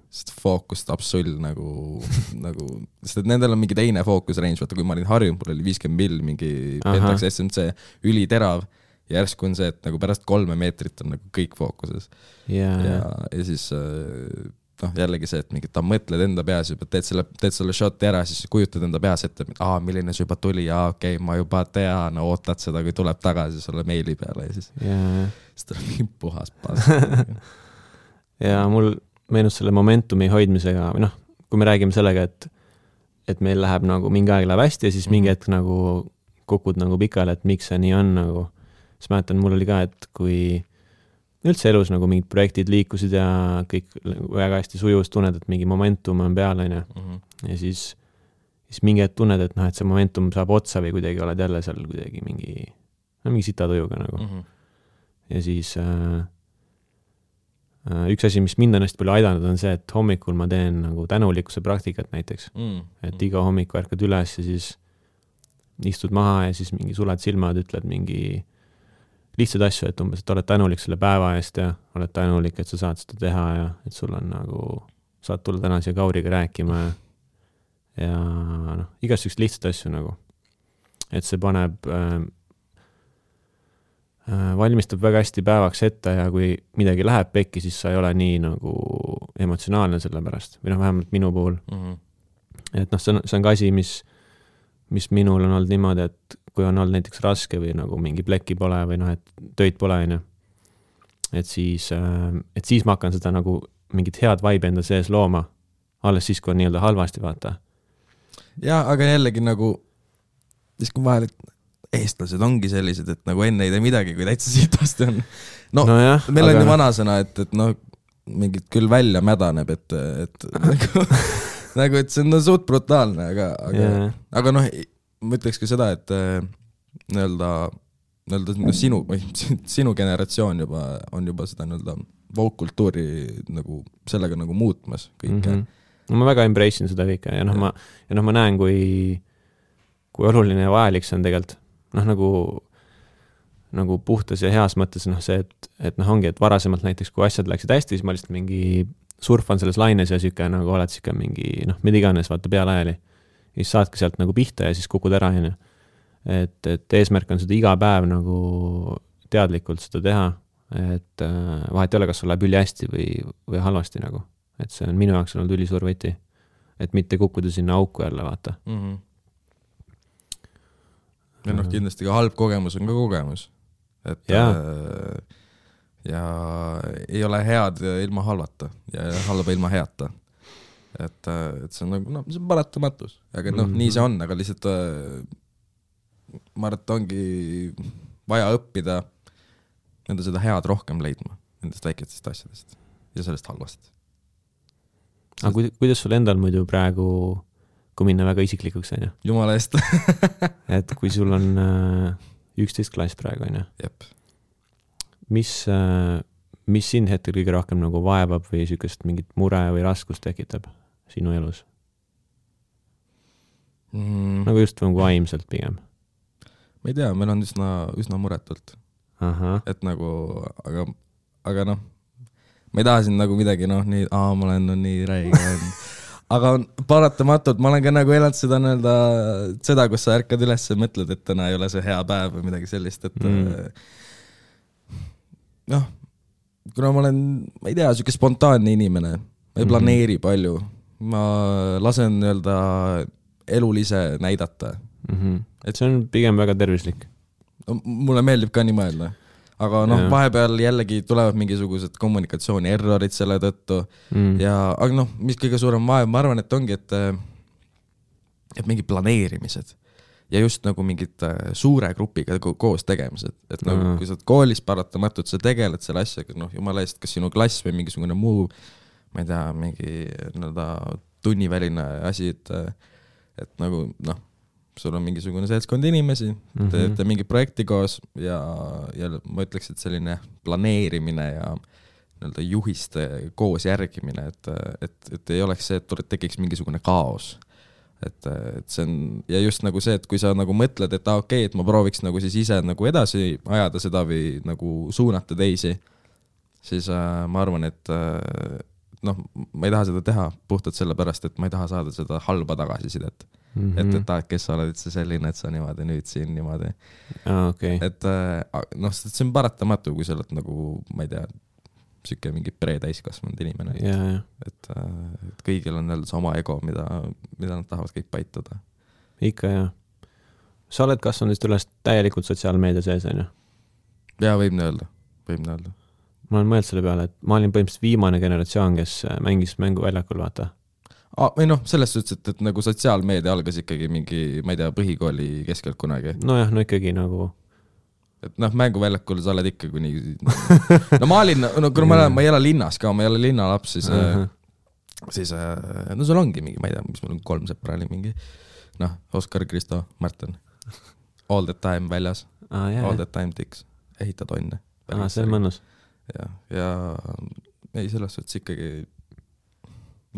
Sest fookus tapsull nagu, sest et nendel on mingi teine fookus range, vaata kui ma olin harjunud, mul oli 50 mill mingi Pentax SMC üliterav. Järsku on see, et nagu pärast 3 meetrit on nagu kõik fookuses. Ja siis jällegi see, et ta mõtled enda peas juba, teed selle shoti ära, siis kujutad enda peas ette, milline see juba tuli, okei, ma juba tean, ootad seda, kui tuleb tagasi sulle meili peale ja siis tuleb mingi puhas pas. ja mul meenus selle momentumi hoidmisega, või noh, kui me räägime sellega, et meil läheb nagu mingi aeg läheb hästi ja siis mingi hetk nagu kukud nagu pikale, et miks see nii on nagu, siis mäletan, mul oli ka, et kui üldse elus nagu mingid projektid liikusid ja kõik väga hästi sujus, tunned, et mingi momentum on peal, on ju. Ja siis mingi hetk tunned, et noh, et see momentum saab otsa või kuidagi oled jälle seal kuidagi mingi sitatujuga nagu. Ja siis üks asi, mis mind on hästi palju aidanud, on see, et hommikul ma teen nagu tänulikkuse praktikat näiteks. Et iga hommik värkad üles ja siis istud maha ja siis mingi suled silmad, ütled mingi lihtsad asju, et umbes, et oled tänulik selle päeva eest ja oled tänulik, et sa saad seda teha ja et sul on nagu, saad tulla täna siia Kauriga rääkima ja noh, igast üks lihtsad asju nagu. Et see paneb valmistab väga hästi päevaks ette ja kui midagi läheb pekki, siis sa ei ole nii nagu emotsionaalne selle pärast. Või noh, vähemalt minu puhul. Et noh, see on ka asi, mis minul on olnud niimoodi, et kui on olnud näiteks raske või nagu mingi pleki pole või noh, et töid pole, et siis ma hakkan seda nagu mingit head vibe enda sees looma. Alles siis, kui on nii-öelda halvasti, vaata. Ja, aga jällegi nagu, siis kui vahel, et eestlased ongi sellised, et nagu enne ei tee midagi, kui täitsa sitasti on. No jah, meil on ju vanasõna, et noh, mingid küll välja mädaneb, et nagu, et see on suht brutaalne, aga noh, ma ütleks ka seda, et nii-öelda sinu generatsioon on juba seda nii-öelda woke-kultuuri nagu sellega nagu muutmas kõike. No ma väga embrace'in seda kõike ja noh, ma näen, kui oluline ja vajalik see on tegelikult. Noh, nagu puhtas ja heas mõttes noh see, et noh ongi, et varasemalt näiteks, kui asjad läksid hästi, siis ma lihtsalt mingi surfan selles laines ja süke nagu oled süke mingi, noh, mida iganes, vaata pealajali. Siis saadki sealt nagu pihta ja siis kukud ära. Et eesmärk on seda iga päev nagu teadlikult seda teha, et vahet ei ole, kas sul läheb üli hästi või halvasti nagu. Et see on minu jaoks olnud ülisuur võti, et mitte kukkuda sinna auku jälle, vaata. Ja noh, kindlasti ka halb kogemus on ka kogemus. Et ja ei ole head ilma halvata ja halba ilma heata. Et see on nagu, noh, see on paratamatus. Aga noh, nii see on, aga lihtsalt ma arvan, et ongi vaja õppida nende seda head rohkem leidma nendest väikestest asjadest ja sellest halvast. Aga kuidas sul endal muidu praegu, kui minna väga isiklikuks, on ju? Jumala eest. Et kui sul on 11 klass praegu, on ju? Jep. Mis sind hetkel kõige rohkem nagu vaevab või sükest mingit mure või raskust tekitab sinu elus? Nagu just nagu vaimselt pigem. Ma ei tea, meil on üsna muretult. Et nagu, aga noh, ma ei taha siin nagu midagi, noh, nii, ma olen nii räige. Aga paratamatult, ma olen ka nagu elanud seda, kus sa ärkad üles ja mõtled, et täna ei ole see hea päev või midagi sellist, et noh, kuna ma olen, ma ei tea, siuke spontaanne inimene, ma ei planeeri palju, ma lasen elul ise näidata. Et see on pigem väga tervislik. Mulle meeldib ka nii mõelda. Aga noh, vahepeal jällegi tulevad mingisugused kommunikatsiooni errorid selle tõttu. Aga noh, mis kõige suurem vaev, ma arvan, et ongi, et mingi planeerimised ja just nagu mingid suure grupiga koos tegemised. Et nagu, kui sa oled koolis paratamatult, sa tegeled selle asjaga, noh, jumala eest, kas sinu klass või mingisugune muu, ma ei tea, mingi tunniväline asi, et nagu, noh, sul on mingisugune seltskond inimesi, teete mingi projekti koos ja ma ütleks, et selline planeerimine ja juhiste koos järgimine, et ei oleks see, et tekiks mingisugune kaos. Et see on, ja just nagu see, et kui sa nagu mõtled, et okei, et ma prooviks nagu siis ise nagu edasi ajada seda või nagu suunata teisi, siis ma arvan, et noh, ma ei taha seda teha puhtalt sellepärast, et ma ei taha saada seda halba tagasisidet. Et kes sa oled üldse selline, et sa niimoodi nüüd siin niimoodi. Et noh, see on paratamatu, kui sa oled nagu, ma ei tea, süke mingi pre-täiskasvanud inimene. Et kõigil on see oma ego, mida nad tahavad kõik paitada. Ikka, jah. Sa oled kasvanud üles täielikult sotsiaalmeedia sees, on ju? Jaa, võib nii öelda. ma olen mõelnud selle peale, et ma olin põhimõtteliselt viimane generatsioon, kes mängis mängu väljakul, vaata. Või noh, selles suhtes, et nagu sotsiaalmeedia algas ikkagi mingi, ma ei tea, põhikooli keskelt kunagi. Nojah, no ikkagi nagu... Et noh, mänguväljakul sa oled ikka kuni... No ma olin, no kui ma ei ela linnas ka, ma ei ole linnalaps, siis no sul ongi mingi, ma ei tea, mis mul on 3 sõpra oli mingi, noh, Oskar, Kristo, Martin, all the time väljas, all the time tiks, ehitad onne. See on mõnus. Ja ei, selles suhtes ikkagi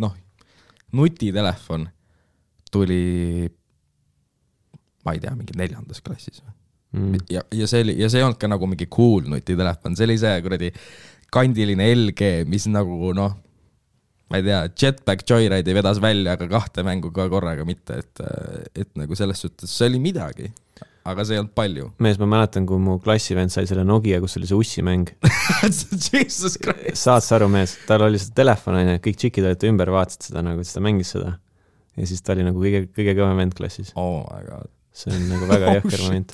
noh, nutitelefon tuli ma ei tea, mingi 4. klassis ja see ei olnud ka nagu mingi cool nutitelefon, see oli see kuradi kandiline LG, mis nagu noh, ma ei tea, Jetpack Joyride vedas välja, aga 2 mängu ka korraga mitte, et nagu selles suhtes see oli midagi, aga see ei olnud palju. Mees, ma mäletan, kui mu klassivend sai selle Nokia, kus oli see ussimäng. Jesus Christ. Saad sa aru, mees, tal oli see telefon, kõik tšikid olid ümber, vaatasid seda, nagu ta mängis seda. Ja siis ta oli nagu kõige kõvem vend klassis. Oh my god. See on nagu väga jõhker moment.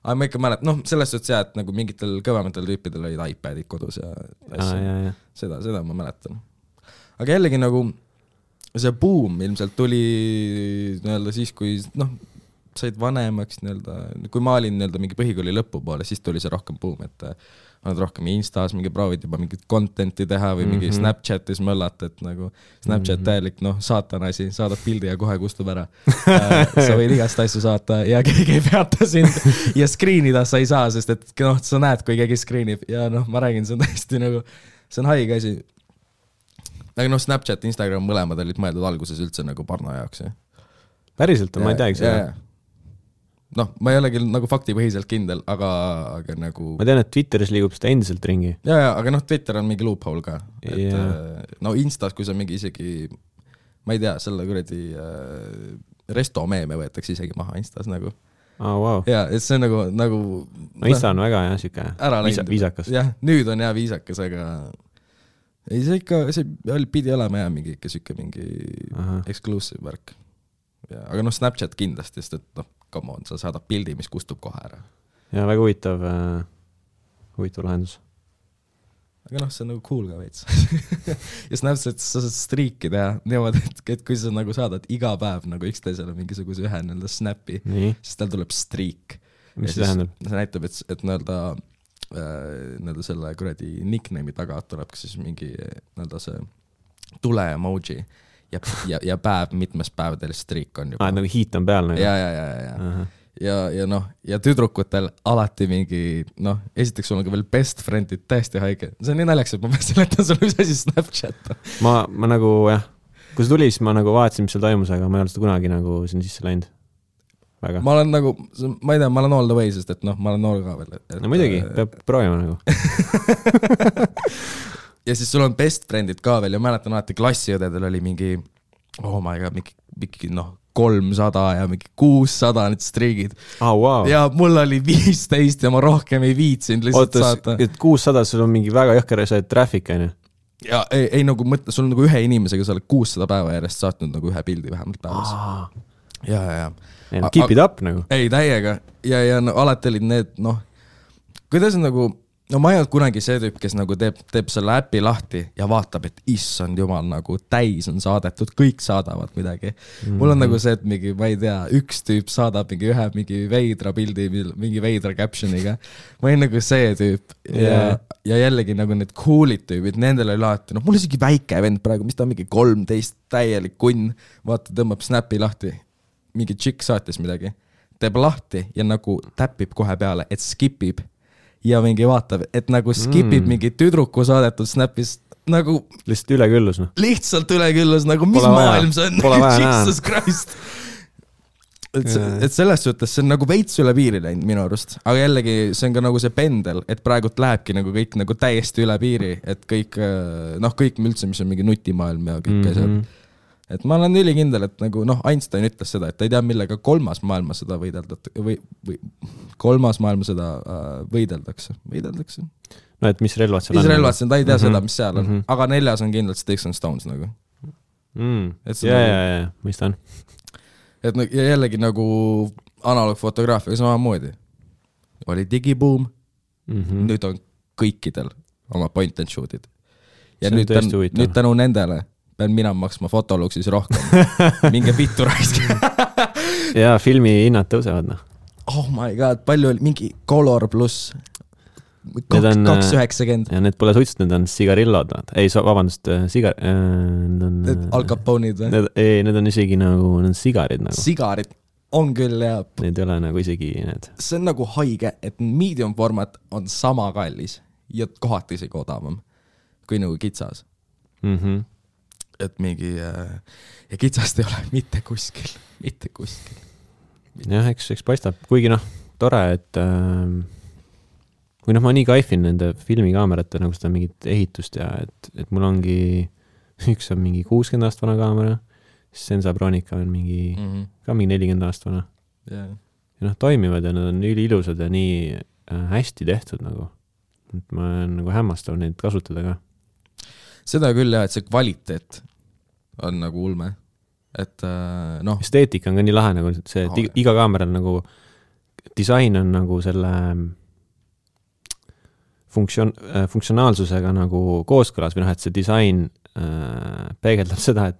Aga ma ikka mäletan, noh, selles suhtes et nagu mingitel kõvematel tüüpidel olid iPadid kodus ja seda ma mäletan. Aga jällegi nagu see boom ilmselt tuli nii-öelda siis, kui noh, said vanemaks nii-öelda, kui ma olin nii-öelda mingi põhikooli lõpu poole, siis tuli see rohkem boom, et oled rohkem Instas mingi proovid juba mingit contenti teha või mingi Snapchatis möllata, et nagu Snapchat täielik, noh, saatan asi, saadad pildi ja kohe kustub ära. Sa võid igast asju saata ja keegi ei peata sind ja screenida sa ei saa, sest et noh, sa näed, kui keegi screenib ja noh, ma räägin, see on täiesti nagu, see on haige asi. Aga noh, Snapchat, Instagram mõlemad olid mõeldud alguses üldse nagu parno jaoks. Päriselt on, ma ei teagi seda. Noh, ma ei olegi nagu faktipõhiselt kindel, aga nagu... Ma tean, et Twitteris liigub seda endiselt ringi. Aga noh, Twitter on mingi loophole ka. No Instas, kui sa mingi isegi, ma ei tea, selle kuradi resto meeme võetakse isegi maha Instas nagu. Wow. Ja, et see on nagu... No Insta on väga siuke viisakas. Jah, nüüd on viisakas, aga... Ei, see ikka, see pidi olema mingi ikka siuke mingi exclusive värk. Aga noh, Snapchat kindlasti, sest et noh, come on, sa saadad pildi, mis kustub kohe ära. Ja väga huvitav lahendus. Aga noh, see on nagu cool ka veits. Ja Snapchat sa saad striiki teha niimoodi, et kui sa nagu saadad iga päev nagu üksteisele mingisuguse ühe nii-öelda snappi, siis tal tuleb striik. Mis see tähendab? See näitab, et nii-öelda selle kuradi nickname'i taga tuleb siis mingi nii-öelda see tule emoji ja päev, mitmes päevadel striik on juba. Nagu hiit on peal. Ja noh, ja tüdrukutel alati mingi, noh, esiteks sul on ka veel best friendid täiesti haige. See on nii näljaks, et ma pean seletan sulle, mis asi Snapchat. Ma nagu, jah, kui see tuli, siis ma nagu vaatasin, mis seal toimus, aga ma ei ole seda kunagi nagu sinna sisse läinud. Väga. Ma olen nagu, ma ei tea, ma olen all the way, sest et noh, ma olen noor ka veel. No muidugi, peab proovima nagu. Ja siis sul on best friendid ka veel ja mäletan alati klassiõdedel oli mingi, oh my god, mingi noh, 300 ja mingi 600 need striigid. Wow. Ja mul oli 15 ja ma rohkem ei viitsinud lihtsalt saata. Et 600 sul on mingi väga jõhker see traffic, on ju? Ja ei nagu mõtle, sul on nagu ühe inimesega sa oled 600 päeva järjest saatnud nagu ühe pildi vähemalt päevas. Ja. Keep it up nagu. Ei, täiega. Ja no, alati olid need, noh, kuidas nagu, no ma ei olnud kunagi see tüüp, kes nagu teeb selle äpi lahti ja vaatab, et issand jumal, nagu täis on saadetud, kõik saadavad midagi. Mul on nagu see, et mingi, ma ei tea, üks tüüp saadab mingi veidra pildi, mingi veidra captioniga. Ma olin nagu see tüüp ja jällegi nagu need coolid tüübid, nendel oli lahti, noh, mul isegi väike vend praegu, mis ta on mingi 13 täielik kunn, vaata, tõmbab snapi lahti, mingi tšikk saatis midagi, teeb lahti ja nagu täpib kohe peale, et skipib ja mingi vaatab, et nagu skipib mingi tüdruku saadetud snapis nagu... Lihtsalt üleküllus, noh. Lihtsalt üleküllus, nagu mis maailm see on? Jesus Christ! Et selles suhtes see on nagu veits üle piiri läinud minu arust. Aga jällegi see on ka nagu see pendel, et praegult lähebki nagu kõik nagu täiesti üle piiri, et kõik, noh, kõik üldse, mis on mingi nutimaailm ja kõik asjad. Et ma olen ülikindel, et nagu, noh, Einstein ütles seda, et ta ei tea, millega kolmas maailmasõda võideldakse. No, et mis relvad seal on? Mis relvad seal, ta ei tea seda, mis seal on. Aga 4 on kindlalt Sticks and Stones nagu. Ja, mõistan. Et ja jällegi nagu analoogfotograafiaga samamoodi. Oli digiboom, nüüd on kõikidel oma point and shoot'id. Ja see nüüd tänu nendele pean mina maksma Fotoluxis rohkem. Minge vittu raisk. ja filmi hinnad tõusevad, noh. Oh my god, palju oli mingi Color pluss 290. Ja need pole suitsid, need on sigarillod. Ei, vabandust, Al Capone'id või? Need on isegi nagu, need on sigarid nagu. Sigarid on küll, ja need ei ole nagu isegi need. See on nagu haige, et medium format on sama kallis ja kohati isegi odavam kui nagu kitsas. Et mingi ja kitsast ei ole mitte kuskil. Jah, eks paistab, kuigi noh, tore, et või noh, ma nii kaifin nende filmikaamerate nagu seda mingit ehitust ja et mul ongi üks on mingi 60 aast vana kaamera, siis Sensa Bronica on mingi ka mingi 40 aast vana. Ja noh, toimivad ja nad on üliilusad ja nii hästi tehtud nagu. Et ma olen nagu hämmastav neid kasutada ka. Seda küll jah, et see kvaliteet on nagu ulme. Et noh. Esteetika on ka nii lahe nagu see, et iga kaameral nagu disain on nagu selle funktsionaalsusega nagu kooskõlas või noh, et see disain peegeldab seda, et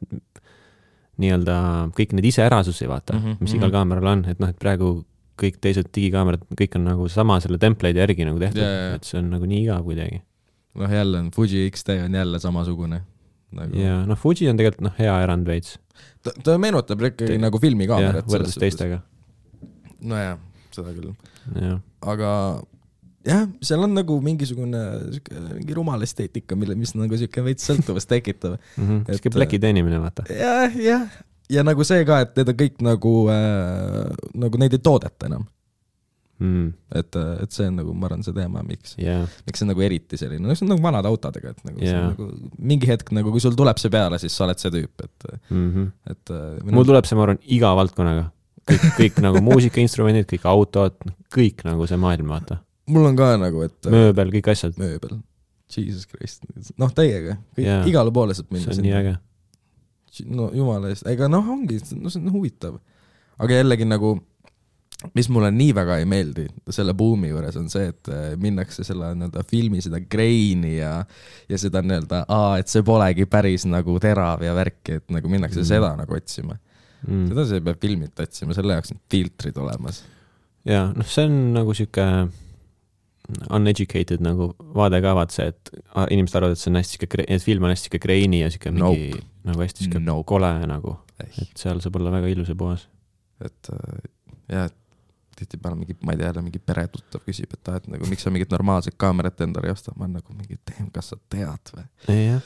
nii-öelda kõik need iseärasusi vaata, mis igal kaameral on, et noh, et praegu kõik teised digikaamerad, kõik on nagu sama selle template'i järgi nagu tehtud, et see on nagu nii igav kuidagi. Noh, jälle on Fuji XT on jälle samasugune. Nagu... Ja noh, Fuji on tegelikult noh, hea erand veits. Ta meenutab ikkagi nagu filmikaamerat. Võrdes teistega. No jah, seda küll. Ja. Aga jah, seal on nagu mingisugune mingi rumal esteetika, mis nagu siuke veits sõltuvast tekitab. Siuke pläki teenimine, vaata. Ja nagu see ka, et need on kõik nagu neid ei toodeta enam. Et see on nagu, ma arvan, see teema, miks see nagu eriti selline, no see on nagu vanad autodega, et nagu, nagu mingi hetk, nagu kui sul tuleb see peale, siis sa oled see tüüp, et mul tuleb see, ma arvan, iga valdkonnaga. Kõik nagu muusikainstrumendid, kõik autod, kõik nagu see maailm, vaata. Mul on ka nagu, et mööbel, kõik asjad. Mööbel. Jesus Christ. Noh, teiega. Igale poole saab minna. See on nii äge. No jumala eest. Ega noh, ongi, no see on huvitav. Aga jällegi nagu, mis mulle nii väga ei meeldi selle buumi juures on see, et minnakse selle filmi seda graini ja seda et see polegi päris nagu terav ja värki, et nagu minnakse seda nagu otsima. Seda see peab filmit otsima, selle jaoks need filtrid olemas. Ja, noh, see on nagu siuke uneducated nagu vaade ka vaat see, et inimesed arvavad, et see on hästi et film on hästi graini ja siuke mingi nagu hästi kole nagu, et seal saab olla väga ilus ja puhas. Et jah, tihti peale mingi, ma ei tea, mingi peretuttav küsib, et nagu, miks sa mingit normaalset kaamerat endale ei osta, ma on nagu mingi, kas sa tead või? Jah.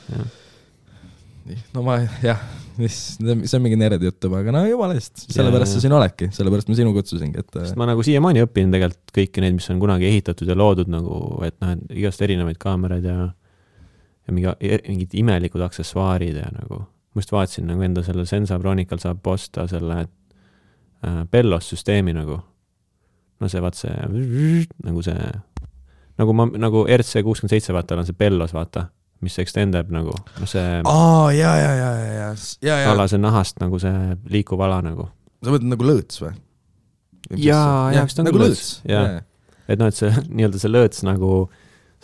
No ma, jah, see on mingi nered jutt, aga no jumala eest, sellepärast sa siin oledki, sellepärast ma sinu kutsusingi, et sest ma nagu siiamaani õpin tegelikult kõiki neid, mis on kunagi ehitatud ja loodud nagu, et noh, igast erinevaid kaameraid ja mingid imelikud aksessuaarid ja nagu, ma just vaatasin nagu enda selle Sensa Bronical saab osta selle Bellos süsteemi nagu, no see vaat see nagu see, nagu RC67 vaata on see Bellos vaata, mis extendab nagu, no see alase nahast nagu see liikuv ala nagu. Sa võtad nagu lõõts või? Jaa, vist on nagu lõõts. Et noh, et see nii-öelda see lõõts nagu,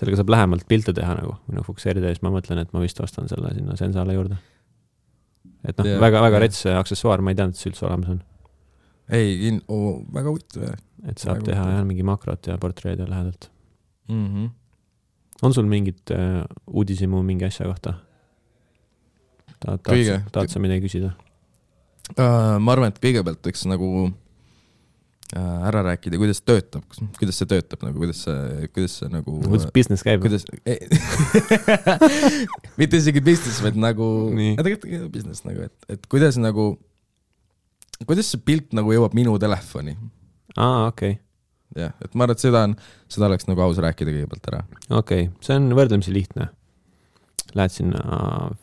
sellega saab lähemalt pilte teha nagu, või noh, fokuseerida ja siis ma mõtlen, et ma vist ostan selle sinna Sensale juurde. Et noh, väga rets aksessuaar, ma ei teadnud, et see üldse olemas on. Ei, väga huvitav. Et saab teha ainult mingi makrot ja portreed ja lähedalt. On sul mingit uudisimu mingi asja kohta? Tahad sa midagi küsida? Ma arvan, et kõigepealt võiks nagu ära rääkida, kuidas see töötab nagu, kuidas see nagu kuidas business käib? Mitte isegi business, vaid nagu tegelikult business nagu, et kuidas see pilt nagu jõuab minu telefoni. Okei. Jah, et ma arvan, et seda oleks nagu aus rääkida kõigepealt ära. Okei, see on võrdlemisi lihtne. Lähed sinna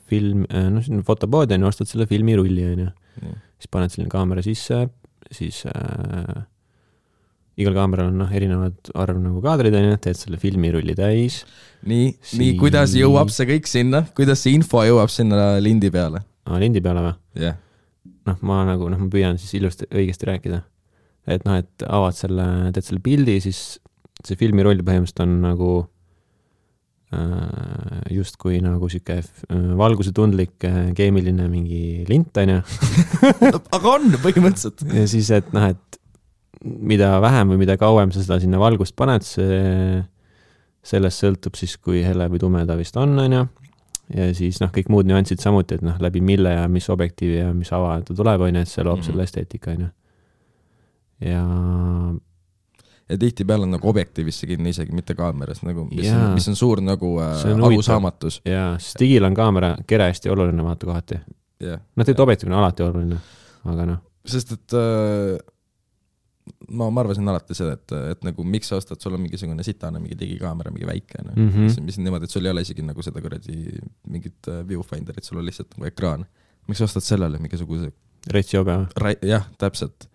sinna fotopoodi ja ostad selle filmirulli, siis paned selline kaamera sisse, siis igal kaameral on erinevad arv nagu kaadrid, teed selle filmirulli täis. Nii, kuidas jõuab see kõik sinna? Kuidas see info jõuab sinna lindi peale? Lindi peale või? Jah. Ma püüan siis ilusti õigesti rääkida. Et noh, et avad teed selle pildi, siis see filmiroll põhimõtteliselt on nagu justkui nagu siuke valgusetundlik keemiline mingi lint, on ju. Aga on põhimõtteliselt. Ja siis, et noh, et mida vähem või mida kauem sa seda sinna valgust paned, sellest sõltub siis, kui hele või tumeda vist on ju. Ja siis noh, kõik muud nüansid samuti, et noh, läbi mille ja mis objektiivi ja mis ava ta tuleb, on ju, et see loob selle esteetika, on ju. Ja tihti peal on nagu objektiivisse kinni isegi, mitte kaameras, nagu, mis on suur nagu arusaamatus. Jaa, sest digil on kaamera kere hästi oluline vaata kohati. Yeah. Noh, tegelikult objektiivne on alati oluline, aga noh. Sest, et ma arvasin alati seda, et nagu miks sa ostad, sul on mingisugune sitane, mingi digikaamera, mingi väike, no? Mis niimoodi, et sul ei ole isegi nagu seda kuradi mingit viewfinderit, sul on lihtsalt nagu ekraan. Miks sa ostad sellele mingisuguse retsi obe? Jah, täpselt.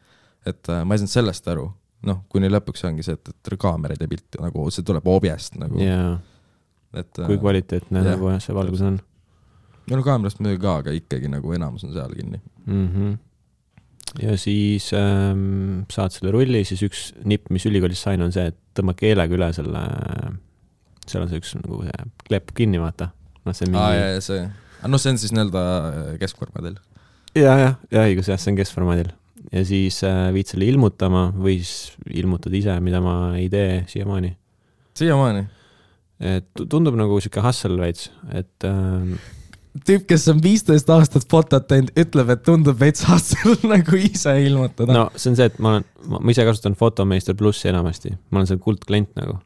Et ma ei saanud sellest aru. Noh, kuni lõpuks ongi see, et kaameraid ja pilti, nagu see tuleb objest nagu. Jaa, kui kvaliteetne nagu see valgus on. No kaamerast muidugi ka, aga ikkagi nagu enamus on seal kinni. Ja siis saad selle rulli, siis üks nipp, mis ülikoolis sain, on see, et tõmba keelega üle selle, seal on see üks nagu see klepp kinni, vaata. No, see mingi... see. No see on siis nii-öelda keskformaadil. Ja, õigus, jah, see on keskformaadil. Ja siis viid selle ilmutama või siis ilmutad ise, mida ma ei tee siiamaani. Siiamaani? Et tundub nagu siuke hustle veits, et... Tüüp, kes on 15 aastat fotot teinud, ütleb, et tundub veits hustle nagu ise ilmutada. No see on see, et ma ise kasutan Photomaster Plussi enamasti. Ma olen seal kuldklient nagu.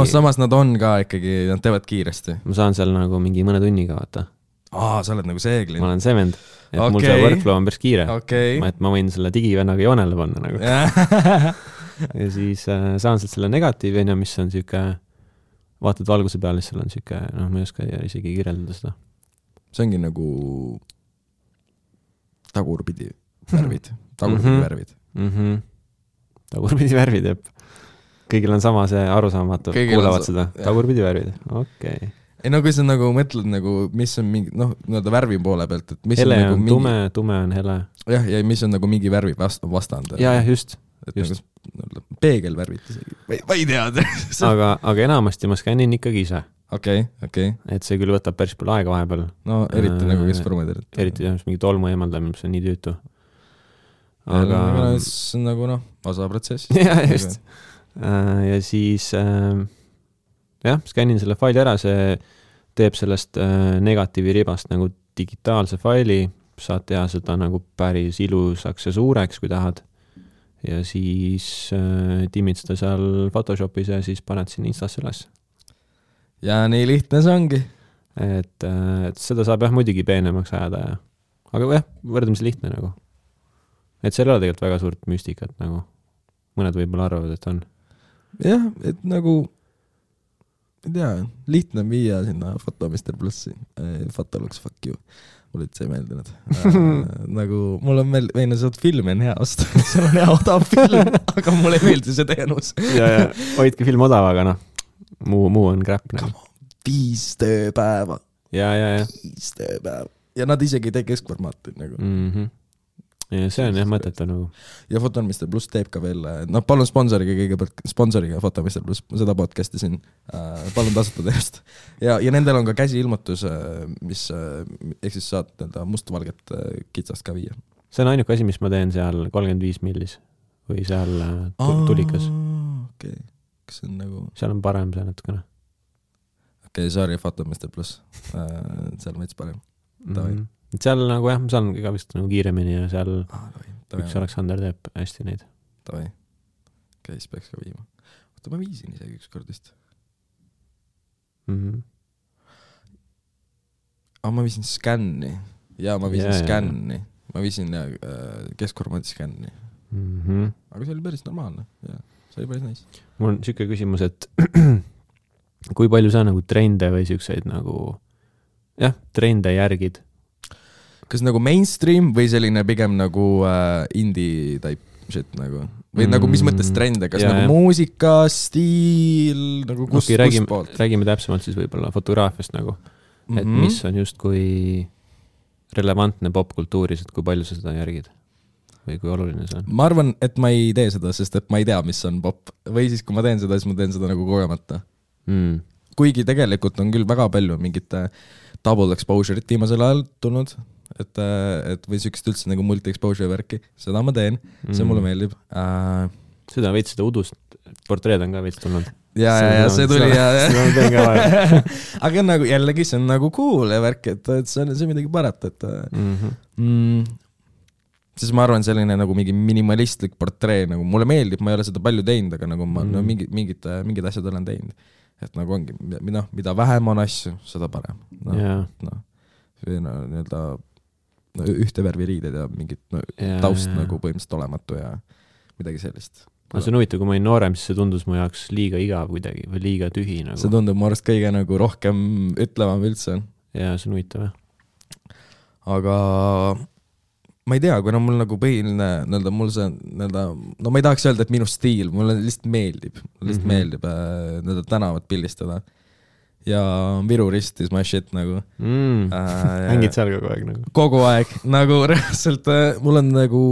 Samas nad on ka ikkagi, nad teevad kiiresti. Ma saan seal nagu mingi mõne tunniga vaata. Sa oled nagu see klient. Ma olen see vend. Et mul see workflow on päris kiire. Et ma võin selle digivennaga joonele panna nagu. Ja siis saan sealt selle negatiivi, mis on siuke, vaatad valguse peal, siis seal on siuke, ma ei oska isegi kirjeldada seda. See ongi nagu tagurpidi värvid. Värvid. Tagurpidi värvid, jep. Kõigil on sama see arusaamatu, kuulavad seda. Tagurpidi värvid, okei. Ei, no kui sa nagu mõtled, nagu, mis on mingi, värvi poole pealt, et mis hele on nagu tume, tume on hele. Ja mis on nagu mingi värvi vastand. Ja, just. Nagu peegelvärvid isegi. Ma ei tea. aga enamasti ma skännin ikkagi ise. Okei. Et see küll võtab päris palju aega vahepeal. No eriti nagu keskformaadil. Eriti mingi tolmu eemaldamine, mis on nii tüütu. Aga see on nagu osa protsess. Ja, just. Ja siis skännin selle faili ära, see teeb sellest negatiivi ribast nagu digitaalse faili, saad teha seda nagu päris ilusaks ja suureks, kui tahad. Ja siis timmid seda seal Photoshopis ja siis paned sinna Instasse üles. Ja nii lihtne see ongi. Et seda saab muidugi peenemaks ajada. Aga võrdlemisi lihtne nagu. Et seal ei ole tegelikult väga suurt müstikat nagu. Mõned võib-olla arvavad, et on. Jah, et nagu ei tea, lihtne viia sinna Photomaster Plussi. Photolux, fuck you. Mulle üldse ei meeldinud. Nagu mul on meenus, et filmi on hea osta. Seal on hea odav film, aga mulle ei meeldi see teenus. Ja hoidki film odav, aga muu on crap. 5 tööpäeva. Ja. 5 tööpäeva. Ja nad isegi ei tee keskformaati nagu. Ja see on mõtetu nagu. Ja Photomaster Plus teeb ka veel, palun sponsoriga Photomaster Plus, seda podcasti siin, palun tasuta teost. Ja nendel on ka käsiilmutus, mis ehk siis saad mustvalget kitsast ka viia. See on ainuke asi, mis ma teen seal 35 millis või seal tulikas. Okei. Kas see on nagu... Seal on parem see natukene. Okei, sorry, Photomaster Plus. Seal on veits parem. Seal nagu ma saan ka vist nagu kiiremini ja seal üks Aleksander teeb hästi neid. Tavai. Okei, siis peaks ka viima. Oota, ma viisin isegi üks kord vist. Ma viisin skänni. Ja ma viisin skänni. Ma viisin keskformaadi skänni. Aga see oli päris normaalne. Ja, see oli päris nice. Mul on siuke küsimus, et kui palju sa nagu trende või siukseid nagu trende järgid? Kas nagu mainstream või selline pigem nagu indie type shit nagu? Või nagu mis mõttes trende? Kas nagu muusika, stiil, nagu kus poolt? Räägime täpsemalt siis võib-olla fotograafiast nagu. Et mis on just kui relevantne popkultuuris, et kui palju sa seda järgid? Või kui oluline see on? Ma arvan, et ma ei tee seda, sest et ma ei tea, mis on pop. Või siis, kui ma teen seda, siis ma teen seda nagu kogemata. kuigi tegelikult on küll väga palju mingite double exposure'it viimasel ajal tulnud, et või siukest üldse nagu multi-exposure värki, seda ma teen, see mulle meeldib. Seda veits seda udust, portreed on ka veits tulnud. Ja see tuli ja aga nagu jällegi see on nagu cool ja värk, et see on midagi parat, et siis ma arvan selline nagu mingi minimalistlik portree, nagu mulle meeldib, ma ei ole seda palju teinud, aga nagu ma mingid asjad olen teinud, et nagu ongi, mida vähem on asju, seda parem. Nii-öelda ühte värvi riided ja mingit taust nagu põhimõtteliselt olematu ja midagi sellist. See on huvitav, kui ma olin noorem, siis see tundus mu jaoks liiga igav kuidagi või liiga tühi nagu. See tundub mu arust kõige nagu rohkem ütlevam üldse. Ja see on huvitav, jah. Aga ma ei tea, kuna mul nagu põhiline, mul see, no ma ei tahaks öelda, et minu stiil, mulle lihtsalt meeldib, meeldib tänavat pildistada. Ja Viru ristis my shit nagu. Hängid seal kogu aeg nagu? Kogu aeg, nagu reaalselt mul on nagu,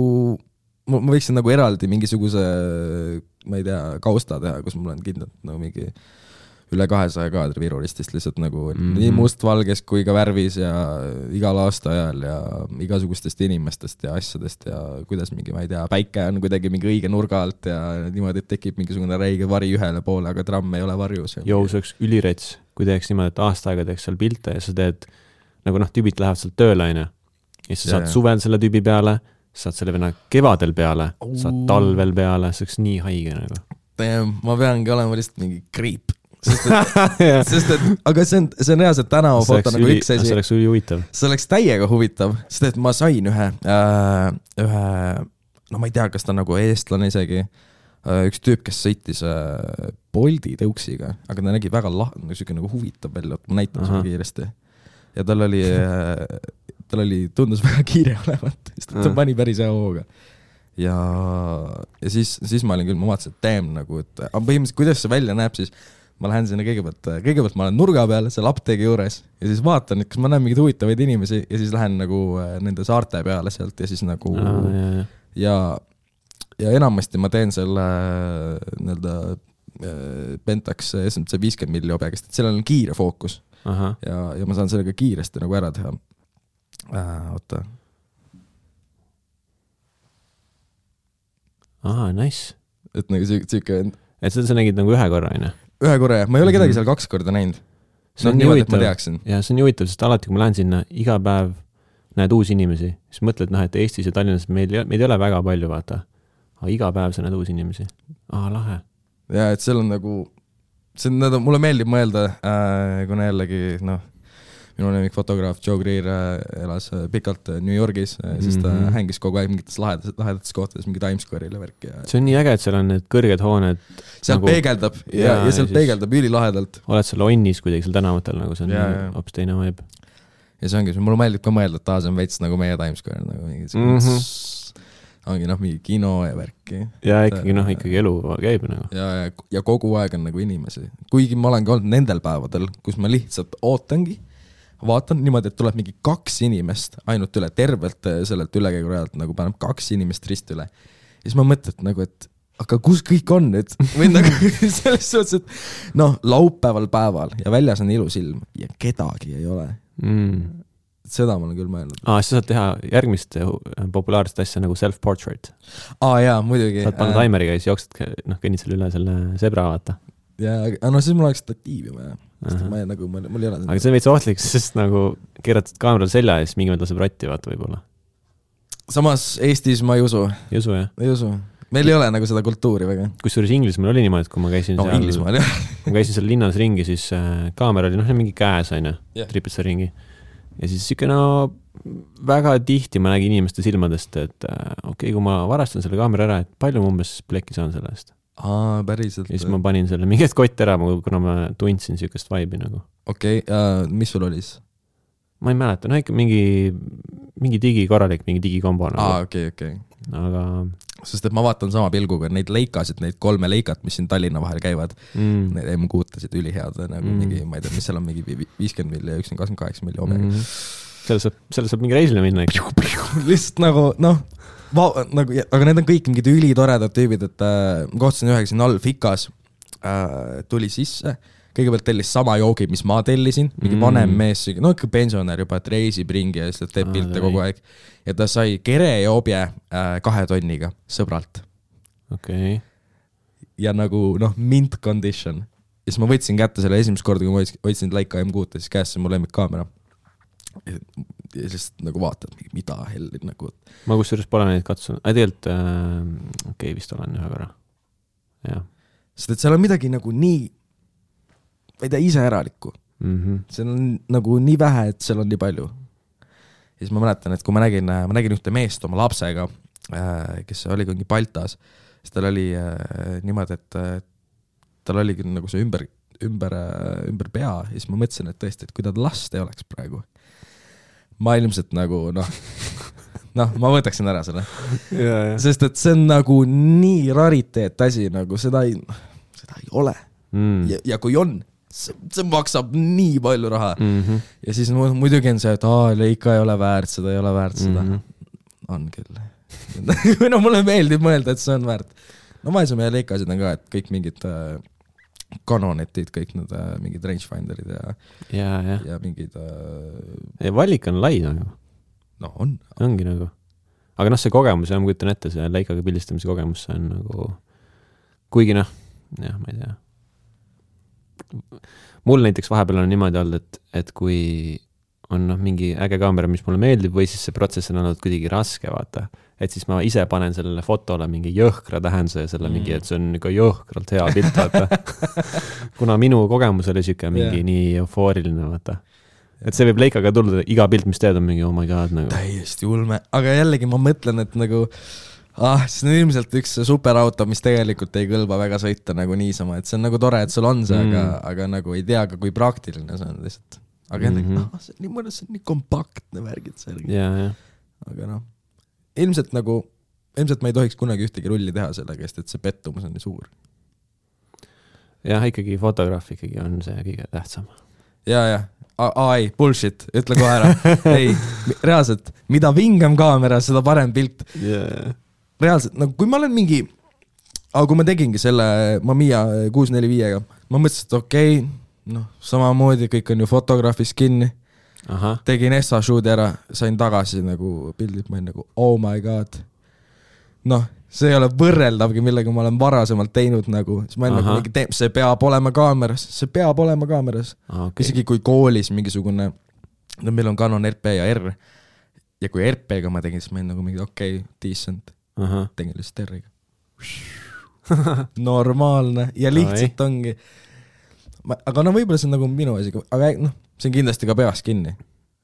ma võiksin nagu eraldi mingisuguse, ma ei tea, kausta teha, kus mul on kindlalt nagu mingi üle 200 kaadri Viru ristist lihtsalt nagu nii mustvalges kui ka värvis ja igal aasta ajal ja igasugustest inimestest ja asjadest ja kuidas mingi, ma ei tea, päike on kuidagi mingi õige nurga alt ja niimoodi, et tekib mingisugune räige vari ühele poole, aga tramm ei ole varjus. Jou, see oleks ülirets, kui teeks niimoodi, et aasta aega teeks seal pilte ja sa teed, nagu tüübid lähevad seal tööle, ja siis sa saad suvel selle tüübi peale, saad selle venna kevadel peale, saad talvel peale, see oleks nii haige nagu. Ma peangi olema lihtsalt mingi creep. Sest et, aga see on reaalselt tänavafoto nagu üks asi. See oleks üli huvitav. See oleks täiega huvitav, sest et ma sain ühe, no ma ei tea, kas ta nagu eestlane isegi, üks tüüp, kes sõitis Bolti tõuksiga, aga ta nägi väga nagu huvitav välja, et ma näitan sulle kiiresti. Ja tal oli, tundus väga kiire olevat, sest ta pani päris hea hooga. Ja siis ma olin küll, ma vaatasin, et damn nagu, et põhimõtteliselt, kuidas see välja näeb, siis ma lähen sinna kõigepealt ma olen nurga peal seal apteegi juures ja siis vaatan, et kas ma näen mingeid huvitavaid inimesi ja siis lähen nagu nende saarte peale sealt ja siis nagu ja enamasti ma teen selle Pentax SMC 50 milli objekest, et sellel on kiire fookus ja ma saan sellega kiiresti nagu ära teha. Oota. Nice. Et nagu siuke et sa nägid nagu ühe korra, Ühe korra, ma ei ole kedagi seal 2 korda näinud. See on nii huvitav, ja see on nii huvitav, sest alati, kui ma lähen sinna, iga päev näed uusi inimesi, siis mõtled, et Eestis ja Tallinnas meid ei ole väga palju, vaata. Aga iga päev sa näed uusi inimesi. Lahe. Ja, et seal on nagu, mulle meeldib mõelda, kuna jällegi, minu lemmik fotograaf Joe Greer elas pikalt New Yorgis, siis ta hängis kogu aeg mingites lahedates kohtades, mingi Times Square'ile värk. See on nii äge, et seal on need kõrged hooned. Seal nagu peegeldab ja seal peegeldab ülilahedalt. Oled seal onnis kuidagi seal tänavatel, nagu see on hoopis teine vibe. Ja see ongi, mulle meeldib ka mõelda, et see on veits nagu meie Times Square, nagu mingi kino ja värki. Ja ikkagi elu käib nagu. Ja kogu aeg on nagu inimesi. Kuigi ma olen ka olnud nendel päevadel, kus ma lihtsalt ootangi, vaatan niimoodi, et tuleb mingi 2 inimest ainult üle tervelt sellelt ülekäigurajalt, nagu paneb 2 inimest rist üle. Ja siis ma mõtlen nagu, et aga kus kõik on nüüd? Või nagu selles suhtes, et laupäeval päeval ja väljas on ilus ilm ja kedagi ei ole. Seda ma olen küll mõelnud. Sa saad teha järgmist populaarset asja nagu self-portrait. Jaa, muidugi. Saad panna taimeriga ja siis jooksed, kõnnid selle üle selle sebra vaata. Ja siis mul oleks statiivi vaja. Mul ei ole. Aga see on veits ohtlik, sest nagu keeratad kaameral selja ja siis mingi mõte laseb ratti vaata võib-olla. Samas Eestis ma ei usu. Ei usu, jah? Ei usu. Meil ei ole nagu seda kultuuri väga. Kusjuures Inglismaal oli niimoodi, et kui ma käisin kui ma käisin seal linnas ringi, siis kaamera oli mingi käes, tripid seal ringi. Ja siis väga tihti ma nägin inimeste silmadest, et okei, kui ma varastan selle kaamera ära, et palju ma umbes plekki saan selle eest. Päriselt. Ja siis ma panin selle mingit kott ära, kuna ma tundsin siukest vibe'i nagu. Okei, mis sul oli siis? Ma ei mäleta, ikka mingi digikorralik, mingi digikombo nagu. Okei. Aga sest et ma vaatan sama pilguga neid leikasid, neid 3 leikat, mis siin Tallinna vahel käivad, need M6-tasid ülihead, nagu mingi, ma ei tea, mis seal on mingi 50 milli ja 28 milli omega. Selle saab mingi reisile minna. Lihtsalt nagu, aga need on kõik mingid ülitoredad tüübid, et kohtasin ühega siin all Fikas, tuli sisse, kõigepealt tellis sama joogi, mis ma tellisin, mingi vanem mees, no ikka pensionär juba, et reisib ringi ja lihtsalt teeb pilte kogu aeg. Ja ta sai kerejoobje 2 tonniga sõbralt. Okay. Ja nagu, mint condition. Ja siis ma võtsin kätte selle esimest korda, kui ma võtsin Leica M6, siis käesse mu lemmikkaamera. Ja lihtsalt nagu vaatad, mida helli nagu. Ma kusjuures pole neid katsunud. Tegelikult, vist olen ühe korra. Ja. Sest et seal on midagi nagu nii, ma ei tea, ise äralikku. Seal on nagu nii vähe, et seal on nii palju. Ja siis ma mäletan, et kui ma nägin ühte meest oma lapsega, kes oli mingi Baltas, siis tal oli niimoodi, et tal oli nagu see ümber pea ja siis ma mõtlesin, et tõesti, et kui ta last ei oleks praegu, ma ilmselt nagu, ma võtaksin ära selle. Sest et see on nagu nii rariteet asi, nagu seda ei ole. Ja kui on, see maksab nii palju raha. Ja siis muidugi on see, et Leica ei ole väärt seda. On küll. Mulle meeldib mõelda, et see on väärt. No ma ei saa meie Leicasid on ka, et kõik mingid Canonetid, kõik need mingid rangefinderid ja mingid... Valik on lai nagu. No on. Ongi nagu. Aga see kogemus, ma kujutan ette, see Leicaga pildistamise kogemus, see on nagu... Kuigi ma ei tea. Mul näiteks vahepeal on niimoodi olnud, et kui on mingi äge kaamera, mis mulle meeldib, või siis see protsess on olnud kuidagi raske, vaata. Et siis ma ise panen sellele fotole mingi jõhkra tähenduse ja selle mingi, et see on nagu jõhkralt hea pilt, vaata. Kuna minu kogemus oli siuke mingi nii eufooriline, vaata. Et see võib Leicaga tulla, iga pilt, mis teed on mingi, oh my god, nagu. Täiesti ulme. Aga jällegi ma mõtlen, et nagu, see on ilmselt üks superauto, mis tegelikult ei kõlba väga sõita nagu niisama. Et see on nagu tore, et sul on see, aga nagu ei tea ka, kui praktiline see on lihtsalt. Aga jällegi, see on nii mõnes, see on nii kompaktne värgid särgi. Aga ilmselt ma ei tohiks kunagi ühtegi rulli teha selle käest, et see pettumus on nii suur. Jah, ikkagi fotograaf ikkagi on see kõige tähtsam. Ei, bullshit, ütle kohe ära. Ei, reaalselt, mida vingem kaamera, seda parem pilt. Reaalselt, nagu kui ma olen mingi, kui ma tegingi selle Mamiya 645-ga, ma mõtlesin, et okei, samamoodi kõik on ju fotograafis kinni. Tegin SA-shooti ära, sain tagasi nagu pildid, ma olin nagu, oh my god. See ei ole võrreldavgi, millega ma olen varasemalt teinud nagu, siis ma olen nagu, see peab olema kaameras. Isegi kui koolis mingisugune, meil on Canon RP ja R, ja kui RP-ga ma tegin, siis ma olin nagu mingi, decent, tegin lihtsalt R-iga. Normaalne, ja lihtsalt ongi. Aga võib-olla see on nagu minu asi, aga see on kindlasti ka peas kinni.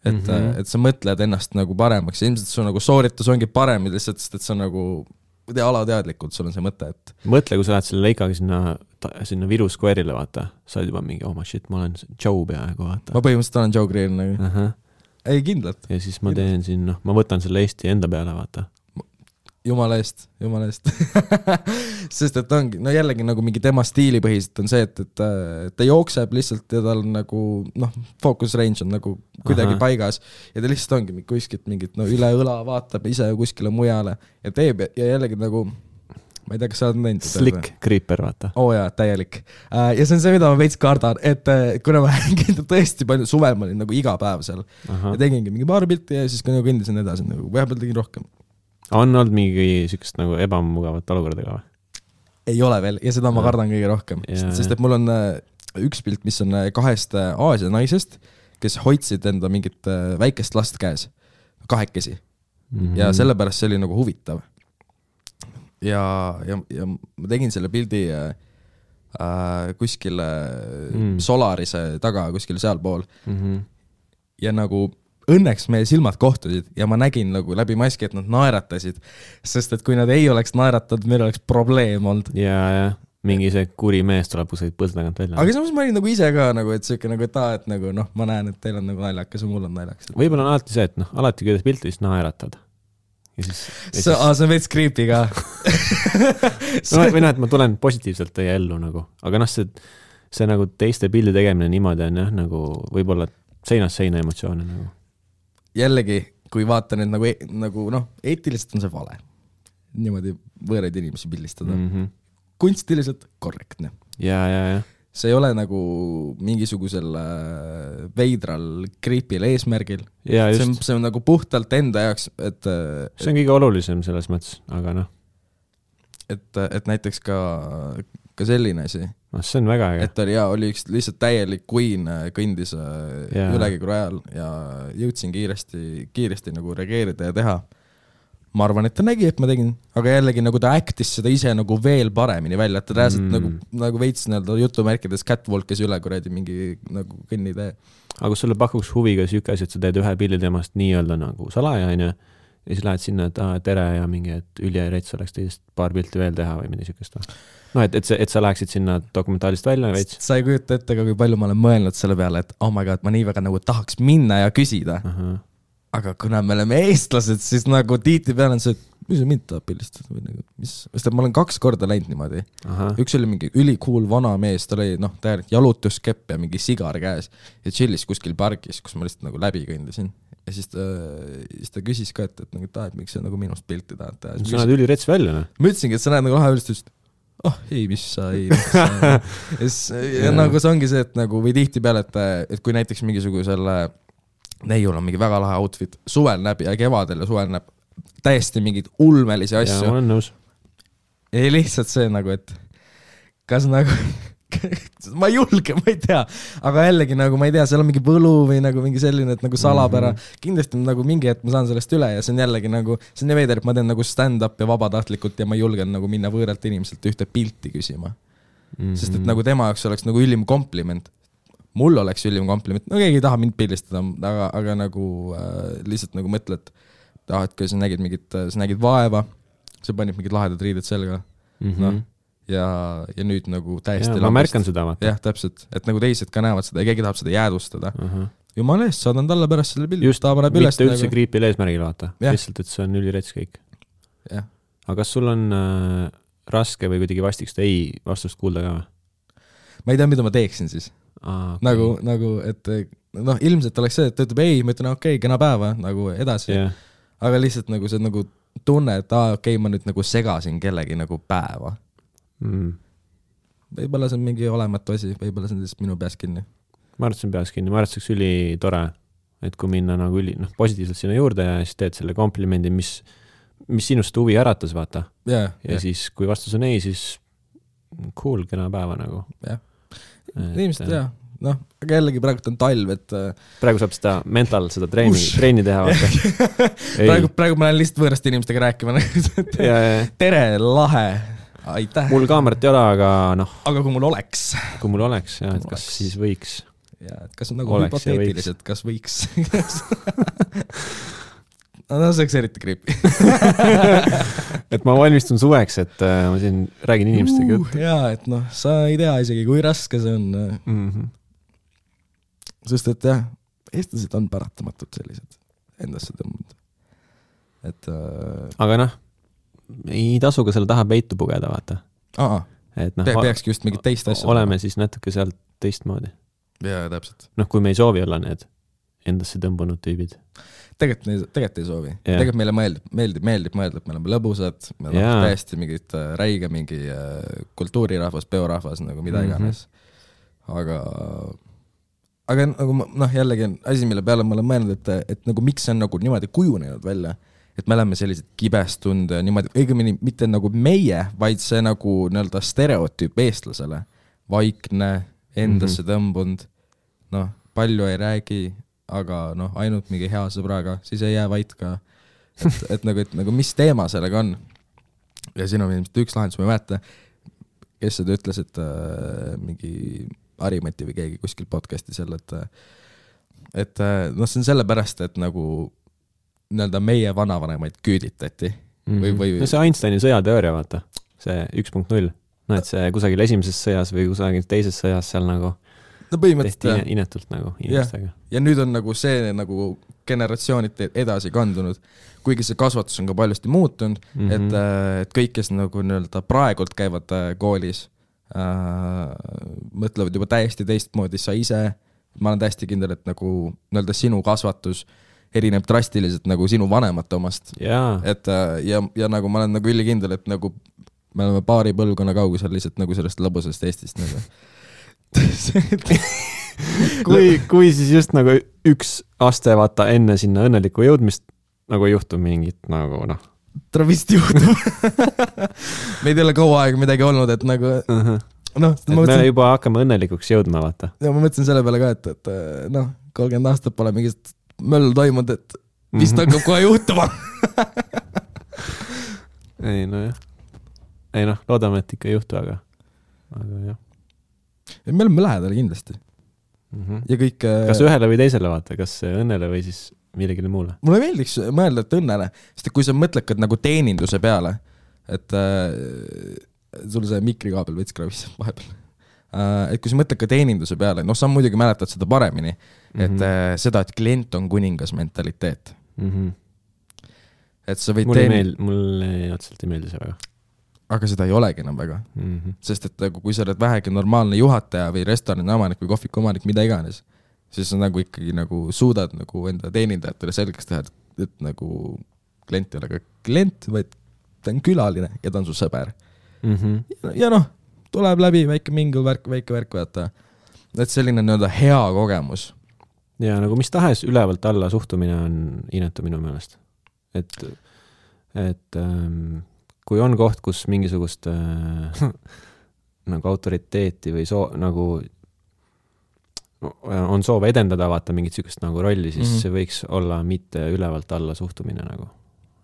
Et sa mõtled ennast nagu paremaks, ilmselt su nagu sooritus ongi parem, lihtsalt, et sa nagu alateadlikult, sul on see mõte, et... Mõtle, kui sa lähed selle Leicaga sinna Viru Square'ile, vaata, sa oled juba mingi, oh my shit, ma olen Joe peaaegu, vaata. Ma põhimõtteliselt olen Joe Greer nagu. Ei, kindlalt. Ja siis ma teen siin, ma võtan selle Eesti enda peale, vaata. Jumala eest. Sest et ongi, jällegi nagu mingi tema stiilipõhiselt on see, et ta jookseb lihtsalt ja tal nagu, focus range on nagu kuidagi paigas ja ta lihtsalt ongi kuskilt mingit üle õla vaatab ise kuskile mujale ja teeb ja jällegi nagu, ma ei tea, kas sa oled näinud. Slick creeper, vaata. Jaa, täielik. Ja see on see, mida ma veits kardan, et kuna ma tõesti palju suvel ma olin nagu iga päev seal ja tegingi mingi paar pilti ja siis kõndisin edasi, nagu vahepeal tegin rohkem. On olnud mingi sükest nagu ebamugavat olukordaga või? Ei ole veel ja seda ma kardan kõige rohkem, sest et mul on üks pilt, mis on 2 Aasia naisest, kes hoidsid enda mingit väikest last käes, 2 ja sellepärast see oli nagu huvitav. Ja ma tegin selle pildi kuskile Solarise taga, kuskile sealpool ja nagu õnneks meie silmad kohtusid ja ma nägin nagu läbi maski, et nad naeratasid, sest et kui nad ei oleks naeratanud, meil oleks probleem olnud. Ja mingi see kuri mees tuleb kuskilt põlda tagant välja. Aga samas ma olin nagu ise ka, nagu, et siuke nagu, et nagu, ma näen, et teil on nagu naljakas ja mul on naljakas. Võib-olla on alati see, et alati kui teed pilti, siis naeratad. See on veits creepy ka. Või et ma tulen positiivselt teie ellu nagu, aga see nagu teiste pildi tegemine niimoodi on nagu võib-olla seinast seina emotsioone nagu. Jällegi, kui vaata nüüd nagu eetiliselt on see vale. Niimoodi võõraid inimesi pildistada. Kunstiliselt korrektne. Ja. see ei ole nagu mingisugusel veidral creepil eesmärgil. See on nagu puhtalt enda jaoks, et see on kõige olulisem selles mõttes, aga noh. Et näiteks ka selline asi. See on väga äge. Et oli üks lihtsalt täielik queen kõndis ülekäigu ajal ja jõudsin kiiresti nagu reageerida ja teha. Ma arvan, et ta nägi, et ma tegin, aga jällegi nagu ta actis seda ise nagu veel paremini välja, et ta rääselt nagu veits jutumärkides catwalkis üle kuradi mingi nagu kõnnitee. Aga kui sulle pakuks huviga süüke asi, et sa teed ühe pilli temast nii-öelda nagu salaja, ja siis lähed sinna, et tere ja mingi, et üliärets oleks teist paar pilti veel teha või midagi sükest. No, et sa läheksid sinna dokumentaalist välja veits. Sa ei kujuta ette, kui palju ma olen mõelnud selle peale, et oh my god, ma nii väga nagu tahaks minna ja küsida. Aga kuna me oleme eestlased, siis nagu tiiti peal on see, et mis see mind tahab pildistada või nagu, sest ma olen 2 korda läinud niimoodi. Üks oli mingi ülikool vana mees, ta oli täielik jalutuskepp ja mingi sigar käes ja chillis kuskil pargis, kus ma lihtsalt nagu läbi kõndisin. Ja siis ta küsis ka, et miks sa nagu minust pilti tahad teha. Sa näed ülirets välja, ne? Ma ütlesingi, et sa näed nagu lahe ülist, ei, mis sa ei. Ja nagu see ongi see, et nagu või tihti peale, et kui näiteks mingisugusele neiul on mingi väga lahe outfit, suvel näeb ja kevadel ja suvel näeb täiesti mingid ulmelisi asju. Ja, ma olen nõus. Ei lihtsalt see nagu, et kas nagu ma ei julge, ma ei tea, aga jällegi nagu ma ei tea, seal on mingi võlu või nagu mingi selline, et nagu salapära, kindlasti nagu mingi, et ma saan sellest üle ja see on jällegi nagu, see on nii veider, et ma teen nagu stand-up ja vabatahtlikult ja ma julgen nagu minna võõralt inimeselt ühte pilti küsima. Sest et nagu tema jaoks oleks nagu ülim kompliment. Mul oleks ülim kompliment, no keegi ei taha mind pildistada, aga nagu lihtsalt nagu mõtled, et kui sa nägid vaeva, sa panid mingid lahedad riided selga, ja nüüd nagu täiesti ma märkan seda, vaata. Jah, täpselt, et nagu teised ka näevad seda ja keegi tahab seda jäädustada. Jumala eest, saadan talle pärast selle pildi. Just, mitte üldse kriipil eesmärgil, vaata. Lihtsalt, et see on ülirets kõik. Aga kas sul on raske või kuidagi vastiks ei vastust kuulda ka? Ma ei tea, mida ma teeksin siis. Okay. Nagu, et ilmselt oleks see, et ta ütleb ei, ma ütlen okei, kena päeva, nagu edasi. Aga lihtsalt nagu see nagu tunne, et okei, ma nüüd nagu segasin kellegi nagu päeva. Võibolla see on mingi olematu asi, võibolla see on lihtsalt minu peas kinni. Ma arvan, see on peas kinni, ma arvan, see oleks üli tore, et kui minna nagu positiivselt sinna juurde ja siis teed selle komplimendi, mis sinust huvi äratas, vaata. Ja siis, kui vastus on ei, siis cool, kena päeva nagu. Jah. Inimesed, jah. Aga jällegi praegu on talv, et praegu saab seda mental, seda treeni teha. praegu ma lähen lihtsalt võõrast inimestega rääkima. Tere, lahe. Aitäh. Mul kaamerat ei ole, aga Aga kui mul oleks. Kui mul oleks, jah, et kas siis võiks. Ja, et kas on nagu hüpoteetiliselt, kas võiks. No see oleks eriti creepy. Et ma valmistun suveks, et ma siin räägin inimestega. Jaa, et sa ei tea isegi, kui raske see on. Sest et jah, eestlased on paratamatult sellised endasse tõmbunud. Aga ei tasu ka selle taha peitu pugeda, vaata. Peakski just mingit teist asja. Oleme siis natuke sealt teistmoodi. Jaa, täpselt. Kui me ei soovi olla need endasse tõmbunud tüübid. Tegelikult ei soovi. Tegelikult meile meeldib mõelda, et me oleme lõbusad, me oleme täiesti mingid räige, mingi kultuurirahvas, peorahvas, nagu mida iganes. Aga nagu jällegi asi, mille peale ma olen mõelnud, et nagu miks see on nagu niimoodi kujunenud välja, et me oleme sellised kibestund ja niimoodi, õigemini mitte nagu meie, vaid see nagu nii-öelda stereotüüp eestlasele. Vaikne, endasse tõmbund, palju ei räägi, aga ainult mingi hea sõbraga, siis ei jää vait ka, et nagu mis teema sellega on. Ja siin on üks lahendus, ma ei mäleta, kes seda ütles, et mingi Harimati või keegi kuskil podcasti seal, et see on sellepärast, et nagu nii-öelda meie vanavanemaid küüditati. See Einsteini sõjateooria, vaata, see 1.0, et see kusagil esimeses sõjas või kusagil teises sõjas seal nagu tehti inetult nagu inimestega. Ja nüüd on nagu see nagu generatsioonid edasi kandunud, kuigi see kasvatus on ka paljusti muutunud, et kõik, kes nagu nii-öelda praegult käivad koolis, mõtlevad juba täiesti teistmoodi sa ise. Ma olen täiesti kindel, et nagu nii-öelda sinu kasvatus erineb drastiliselt nagu sinu vanemate omast. Et, ja nagu ma olen nagu ülikindel, et nagu me oleme paari põlvkonna kaugusel lihtsalt nagu sellest lõbusest Eestist nagu. kui siis just nagu üks aste vaata enne sinna õnneliku jõudmist nagu ei juhtu mingit nagu noh. Ta vist juhtub. Meid ei ole kaua aega midagi olnud, et nagu noh. Me juba hakkame õnnelikuks jõudma, vaata. Ja ma mõtlesin selle peale ka, et noh, 30 aastat pole mingist möll toimunud, et vist hakkab kohe juhtuma. Ei noh, loodame, et ikka ei juhtu, aga jah. Me oleme lähedal kindlasti. Ja kõik... Kas ühele või teisele vaata, kas õnnele või siis millegile muule? Mulle meeldiks mõelda, et õnnele, sest kui sa mõtled nagu teeninduse peale, et sul see mikrikaabel võts kravis vahepeal, et kui sa mõtled ka teeninduse peale, noh, sa muidugi mäletad seda paremini, et seda, et klient on kuningas mentaliteet. Et sa võid mulle otseselt ei meeldi see väga. Aga seda ei olegi enam väga. Sest et kui sa oled vähegi normaalne juhataja või restorani omanik või kohviku omanik, mida iganes, siis sa nagu ikkagi nagu suudad nagu enda teenindajatele selgeks teha, et nagu klient ei ole ka klient, vaid ta on külaline ja ta on su sõber. Ja noh, tuleb läbi väike mingil väike värk vaata. Et selline nõnda hea kogemus. Ja nagu mis tahes ülevalt alla suhtumine on inetu minu meelest. Et kui on koht, kus mingisugust nagu autoriteeti või nagu on soov edendada vaata mingit sükest nagu rolli, siis see võiks olla mitte ülevalt alla suhtumine nagu.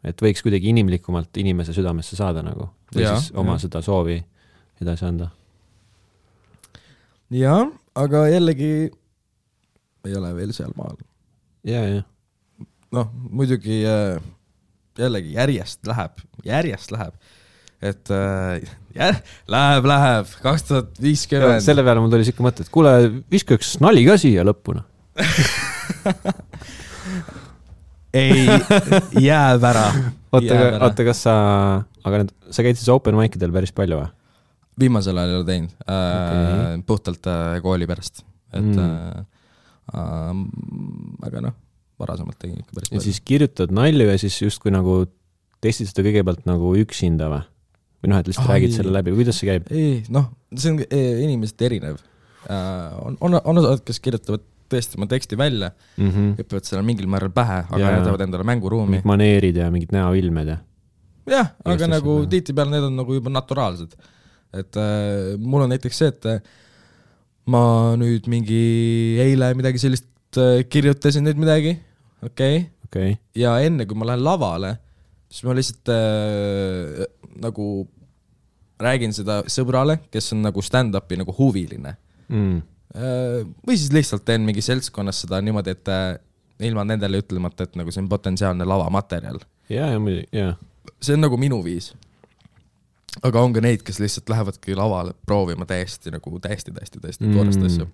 Et võiks kuidagi inimlikumalt inimese südamesse saada nagu. Või siis oma seda soovi edasi anda. Ja, aga jällegi ei ole veel seal maal. Ja. Noh, muidugi jällegi järjest läheb, et läheb 2050. Selle peale mul tuli siuke mõte, et kuule, viska üks nali ka siia lõpuna. Ei, jääb ära. Oota, kas sa käid siis open mic'idel päris palju või? Viimasel ajal ei ole teinud, puhtalt kooli pärast. Et, aga noh, varasemalt tegin ikka päris palju. Ja siis kirjutad nalju ja siis just kui nagu testid seda kõigepealt nagu üksinda või? Või noh, et lihtsalt räägid selle läbi. Kuidas see käib? Ei, noh, see on inimesed erinev. On osad, kes kirjutavad tõesti oma teksti välja, õpivad selle mingil määral pähe, aga jätavad endale mänguruumi. Mingid maneerid ja mingid näoilmed ja... Jah, aga nagu tihtipeale need on nagu juba naturaalsed. Et mul on näiteks see, et ma nüüd mingi eile midagi sellist kirjutasin nüüd midagi, okei. Ja enne, kui ma lähen lavale, siis ma lihtsalt nagu räägin seda sõbrale, kes on nagu stand-upi nagu huviline. Või siis lihtsalt teen mingi seltskonnas seda niimoodi, et ilma nendele ütlemata, et nagu see on potentsiaalne lavamaterjal. Ja. See on nagu minu viis. Aga on ka neid, kes lihtsalt lähevadki lavale proovima täiesti toorest asju.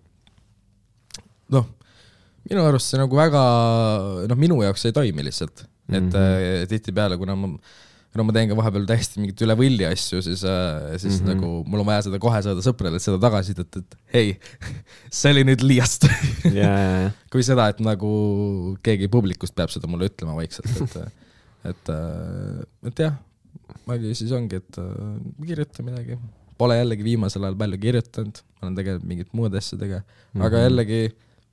Noh, minu arust see nagu väga, noh, minu jaoks ei toimi lihtsalt. Et tihti peale, kuna ma teen ka vahepeal täiesti mingit üle võlli asju, siis nagu mul on vaja seda kohe saada sõprele, et seda tagasi, et hei, see oli nüüd liiast. Kui seda, et nagu keegi publikust peab seda mulle ütlema vaikselt, et jah, aga siis ongi, et kirjuta midagi. Pole jällegi viimasel ajal palju kirjutanud, ma olen tegelikult mingit muud asjadega, aga jällegi,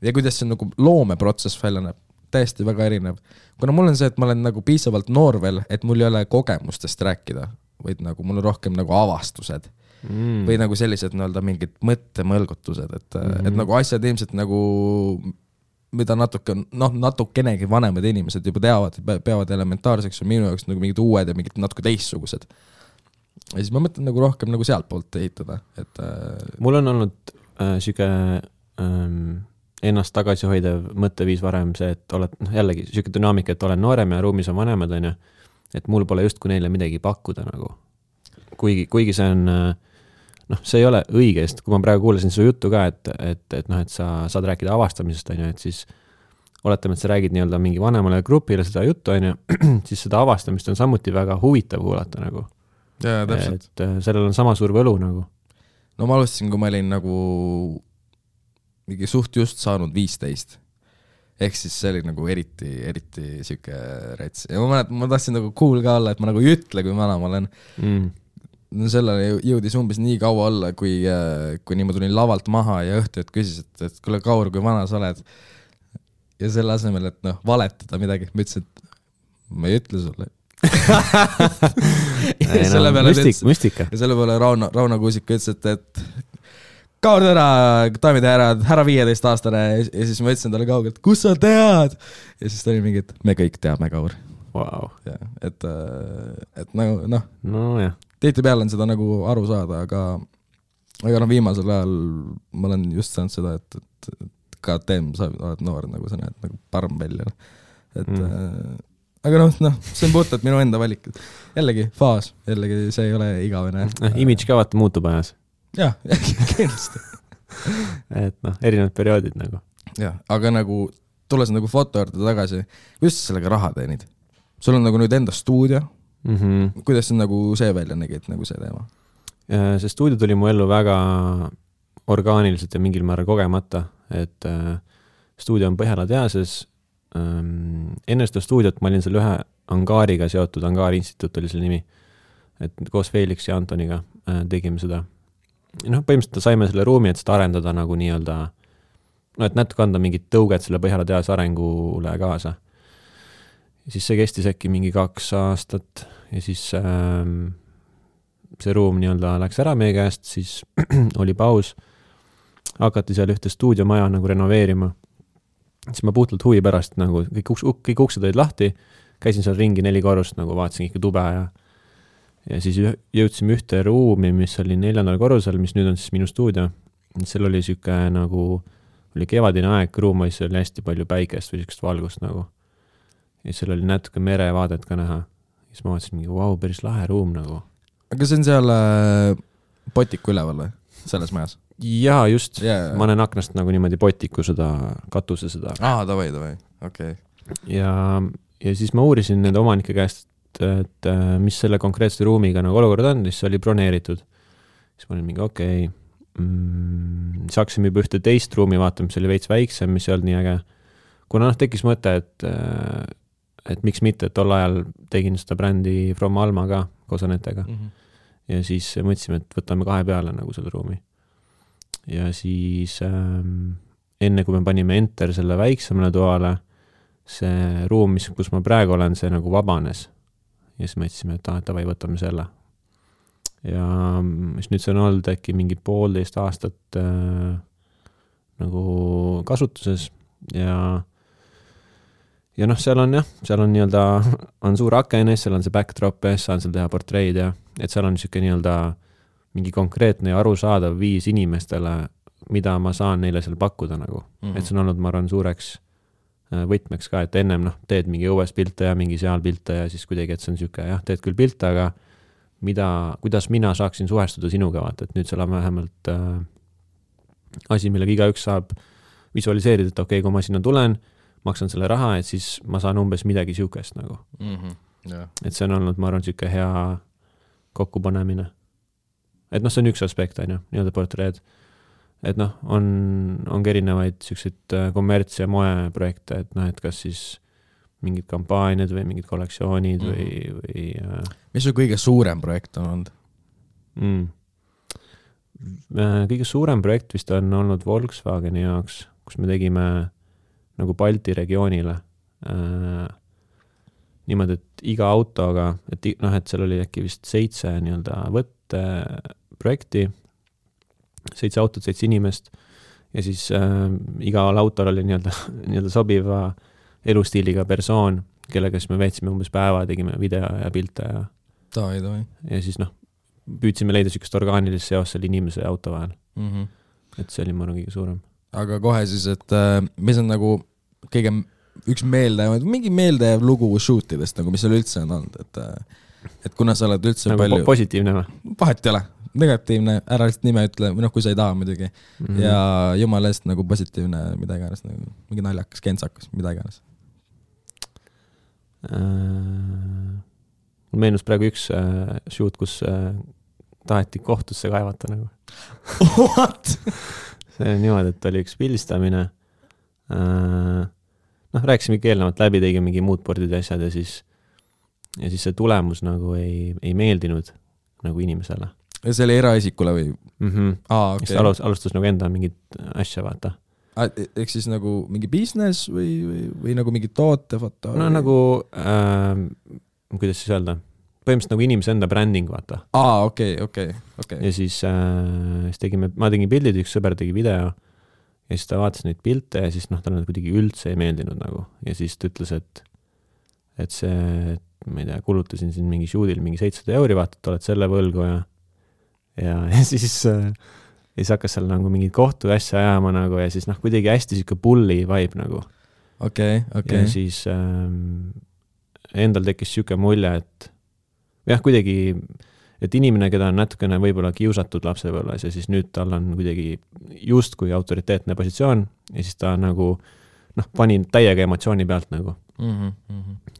ja kuidas see nagu loomeprotsess välja näeb, täiesti väga erinev. Kuna mul on see, et ma olen nagu piisavalt noor veel, et mul ei ole kogemustest rääkida, vaid nagu mul on rohkem nagu avastused või nagu sellised nii-öelda mingid mõttemõlgutused, et nagu asjad ilmselt nagu, mida natukenegi vanemad inimesed juba teavad, peavad elementaarseks ja minu jaoks nagu mingid uued ja mingid natuke teistsugused. Ja siis ma mõtlen nagu rohkem nagu sealt poolt ehitada. Et, mul on olnud siuke ennast tagasi hoidev mõtteviis varem see, et oled jällegi siuke dünaamika, et olen noorem ja ruumis on vanemad, on ju, et mul pole just kui neile midagi pakkuda nagu. Kuigi see on, noh, see ei ole õigest, kui ma praegu kuulasin su juttu ka, et sa saad rääkida avastamisest, on ju, et siis oletame, et sa räägid nii-öelda mingi vanemale grupile seda juttu, on ju, siis seda avastamist on samuti väga huvitav kuulata nagu. Ja, täpselt. Et sellel on sama suur võlu nagu. No ma alustasin, kui ma olin nagu mingi suht just saanud 15. Ehk siis see oli nagu eriti siuke rets. Ja ma tahtsin nagu cool ka olla, et ma nagu ei ütle, kui vana ma olen. sellele jõudis umbes nii kaua olla, kui ma tulin lavalt maha ja õhtu küsis, et kuule, Kaur, kui vana sa oled? Ja selle asemel, et valetada midagi, ma ütlesin, et ma ei ütle sulle. Müstika. Ja selle peale Rauno Kuusik ütles, et Kaur täna, daamid ja härrad, härra 15-aastane ja siis ma ütlesin talle kaugelt, kus sa tead? Ja siis ta oli mingi, et me kõik teame, Kaur. Wow. Ja, et nagu, tihtipeale on seda nagu aru saada, aga viimasel ajal ma olen just saanud seda, et ka teem, sa oled noor, nagu sa näed nagu parm välja. Et, aga see on puhtalt minu enda valik. Jällegi faas, jällegi see ei ole igavene. Image ka vaata muutub ajas. Jah, kindlasti. Et erinevad perioodid nagu. Jah, aga nagu tulles nagu foto juurde tagasi, kuidas sa sellega raha teenid? Sul on nagu nüüd enda stuudio. Kuidas see nagu see välja nägi, et nagu see teema? See stuudio tuli mu ellu väga orgaaniliselt ja mingil määral kogemata, et stuudio on Põhjala tehases. Enne seda stuudiot ma olin seal ühe angaariga seotud, Angaari instituut oli selle nimi, et koos Felix ja Antoniga tegime seda. Põhimõtteliselt saime selle ruumi, et seda arendada nagu nii-öelda, et natuke anda mingit tõuget selle Põhjala tehase arengule kaasa. Ja siis see kestis äkki mingi 2 aastat ja siis see ruum nii-öelda läks ära meie käest, siis oli paus, hakati seal ühte stuudiomaja nagu renoveerima. Siis ma puhtalt huvi pärast nagu, kõik uksed olid lahti, käisin seal ringi 4 korrust, nagu vaatasin ikka tube ja siis jõudsime ühte ruumi, mis oli 4. korrusel, mis nüüd on siis minu stuudio. Seal oli siuke nagu, oli kevadine aeg, ruumis oli hästi palju päikest või siukest valgust nagu. Ja seal oli natuke merevaadet ka näha. Siis ma vaatasin mingi, wow, päris lahe ruum nagu. Aga see on seal potiku üleval või? Selles majas? Jaa, just. Yeah. Ma olen aknast nagu niimoodi potiku seda, katuse seda. Davai, okei. Ja siis ma uurisin nende omanike käest, et mis selle konkreetse ruumiga nagu olukord on, siis oli broneeritud. Siis ma olin mingi, okei. Saaksime juba ühte teist ruumi vaatama, mis oli veits väiksem, mis ei olnud nii äge. Kuna tekkis mõte, et miks mitte, et tol ajal tegin seda brändi From Alma ka koos Anetega. Ja siis mõtlesime, et võtame 2 peale nagu selle ruumi. Ja siis enne kui me panime enter selle väiksemale toale, see ruum, kus ma praegu olen, see nagu vabanes. Ja siis mõtlesime, et davai, võtame selle. Ja siis nüüd see on olnud äkki mingi 1,5 aastat nagu kasutuses ja seal on nii-öelda, on suur aken, seal on see backdrop, saan seal teha portreid ja et seal on siuke nii-öelda mingi konkreetne ja arusaadav viis inimestele, mida ma saan neile seal pakkuda nagu. Et see on olnud, ma arvan, suureks võtmeks ka, et ennem teed mingi õues pilte ja mingi seal pilte ja siis kuidagi, et see on siuke, teed küll pilte, aga kuidas mina saaksin suhestuda sinuga, vaata, et nüüd seal on vähemalt asi, millega igaüks saab visualiseerida, et okei, kui ma sinna tulen, maksan selle raha, et siis ma saan umbes midagi siukest nagu. Et see on olnud, ma arvan, siuke hea kokkupanemine. Et see on üks aspekt, nii-öelda portreed. Et on erinevaid siukseid kommerts- ja moeprojekte, et kas siis mingid kampaaniad või mingid kollektsioonid või Mis su kõige suurem projekt on olnud? Kõige suurem projekt vist on olnud Volkswageni jaoks, kus me tegime nagu Balti regioonile niimoodi, et iga autoga, et seal oli äkki vist 7 nii-öelda võtte projekti, 7 autot, 7 inimest ja siis igal autol oli nii-öelda sobiva elustiiliga persoon, kellega siis me veetsime umbes päeva, tegime video ja pilte ja ja siis püüdsime leida siukest orgaanilist seos selle inimese ja auto vahel. Et see oli ma kõige suurem. Aga kohe siis, et mis on nagu kõige üks mingi meeldev lugu shootidest, nagu mis seal üldse on olnud, et kuna sa oled üldse nagu palju positiivne või? Vahet ei ole, negatiivne, ära lihtsalt nime ütle, kui sa ei taha muidugi ja jumala eest nagu positiivne, mida iganes, nagu, mingi naljakas, kentsakas, mida iganes. Mul meenus praegu üks shoot, kus taheti kohtusse kaevata nagu. What? See on niimoodi, et oli üks pildistamine. Rääkisime ikka eelnevalt läbi, tegime mingi moodboardid ja asjad ja siis see tulemus nagu ei meeldinud nagu inimesele. Ja see oli eraisikule või? Okay. Alustas nagu enda mingit asja, vaata. Ehk siis nagu mingi business või nagu mingi tootefoto? No või? Nagu, kuidas siis öelda? Põhimõtteliselt nagu inimese enda branding, vaata. Okay. Ja siis ma tegin pildid, üks sõber tegi video ja siis ta vaatas neid pilte ja siis talle kuidagi üldse ei meeldinud nagu. Ja siis ta ütles, et see, ma ei tea, kulutasin siin mingi shoot'il mingi 700 €, vaata, et oled selle võlgu ja siis hakkas seal nagu mingid kohtu asja ajama nagu ja siis kuidagi hästi siuke bully vibe nagu. Okay. Ja siis endal tekkis siuke mulje, et jah, kuidagi, et inimene, keda on natukene võib-olla kiusatud lapsepõlves ja siis nüüd tal on kuidagi just kui autoriteetne positsioon ja siis ta nagu pani täiega emotsiooni pealt nagu.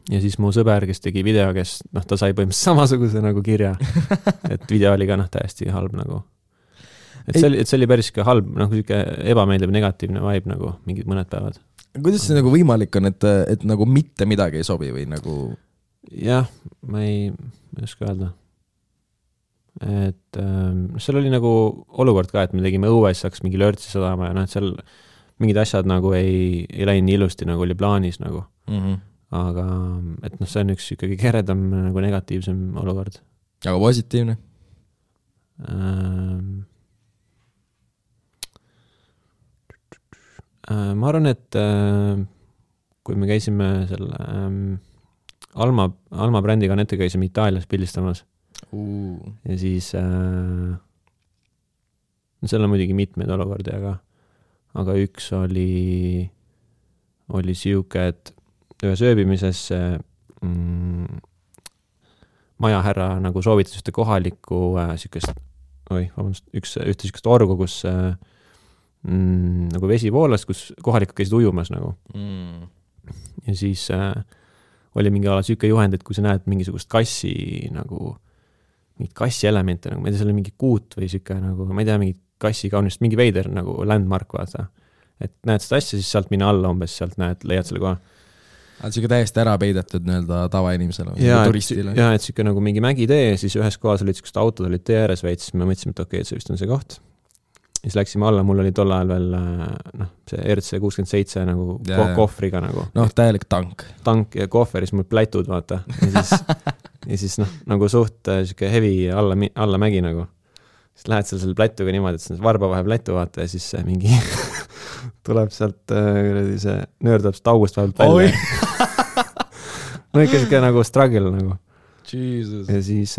Ja siis mu sõber, kes tegi video, kes ta sai põhimõtteliselt samasuguse nagu kirja, et video oli ka täiesti halb nagu. Et see oli päris halb, siuke ebameeldiv negatiivne vibe nagu mingid mõned päevad. Kuidas see nagu võimalik on, et nagu mitte midagi ei sobi või nagu? Jah, ma ei oska öelda. Et seal oli nagu olukord ka, et me tegime õues, saaks mingi lörtsi sadama ja seal mingid asjad nagu ei läinud ilusti, nagu oli plaanis nagu. Aga et see on üks ikkagi keredam nagu negatiivsem olukord. Aga positiivne? Ma arvan, et kui me käisime selle Alma brändiga nette käisime Itaalias pildistamas ja siis seal on muidugi mitmeid olukordi, aga üks oli siuke, et ühes ööbimises majahärra nagu soovitas ühte kohalikku ühte siukest orgu, kus nagu vesi voolas, kus kohalikud käisid ujumas nagu. Ja siis oli mingi ala siuke juhend, et kui sa näed mingisugust kassi nagu, mingit kassi elemente nagu, ma ei tea, seal oli mingi kuut või siuke nagu, ma ei tea, mingi kassi kaunist, mingi veider nagu landmark, vaata. Et näed seda asja, siis sealt mine alla umbes, sealt leiad selle koha. Siuke täiesti ära peidetud nii-öelda tavainimesele, turistile. Ja, et siuke nagu mingi mägitee, siis ühes kohas olid siukest autod, olid tee ääres veits, siis me mõtlesime, et okei, et see vist on see koht. Ja siis läksime alla, mul oli tol ajal veel see RC67 nagu kohvriga nagu. Täielik tank. Tank ja kohveris mul plätud, vaata. Ja siis nagu suht siuke heavy alla mägi nagu. Siis lähed selle plätuga niimoodi, et see varba vahe plätu, vaata, ja siis mingi tuleb sealt see nöördab seda august vahelt välja. No ikka siuke nagu struggle nagu. Jesus. Ja siis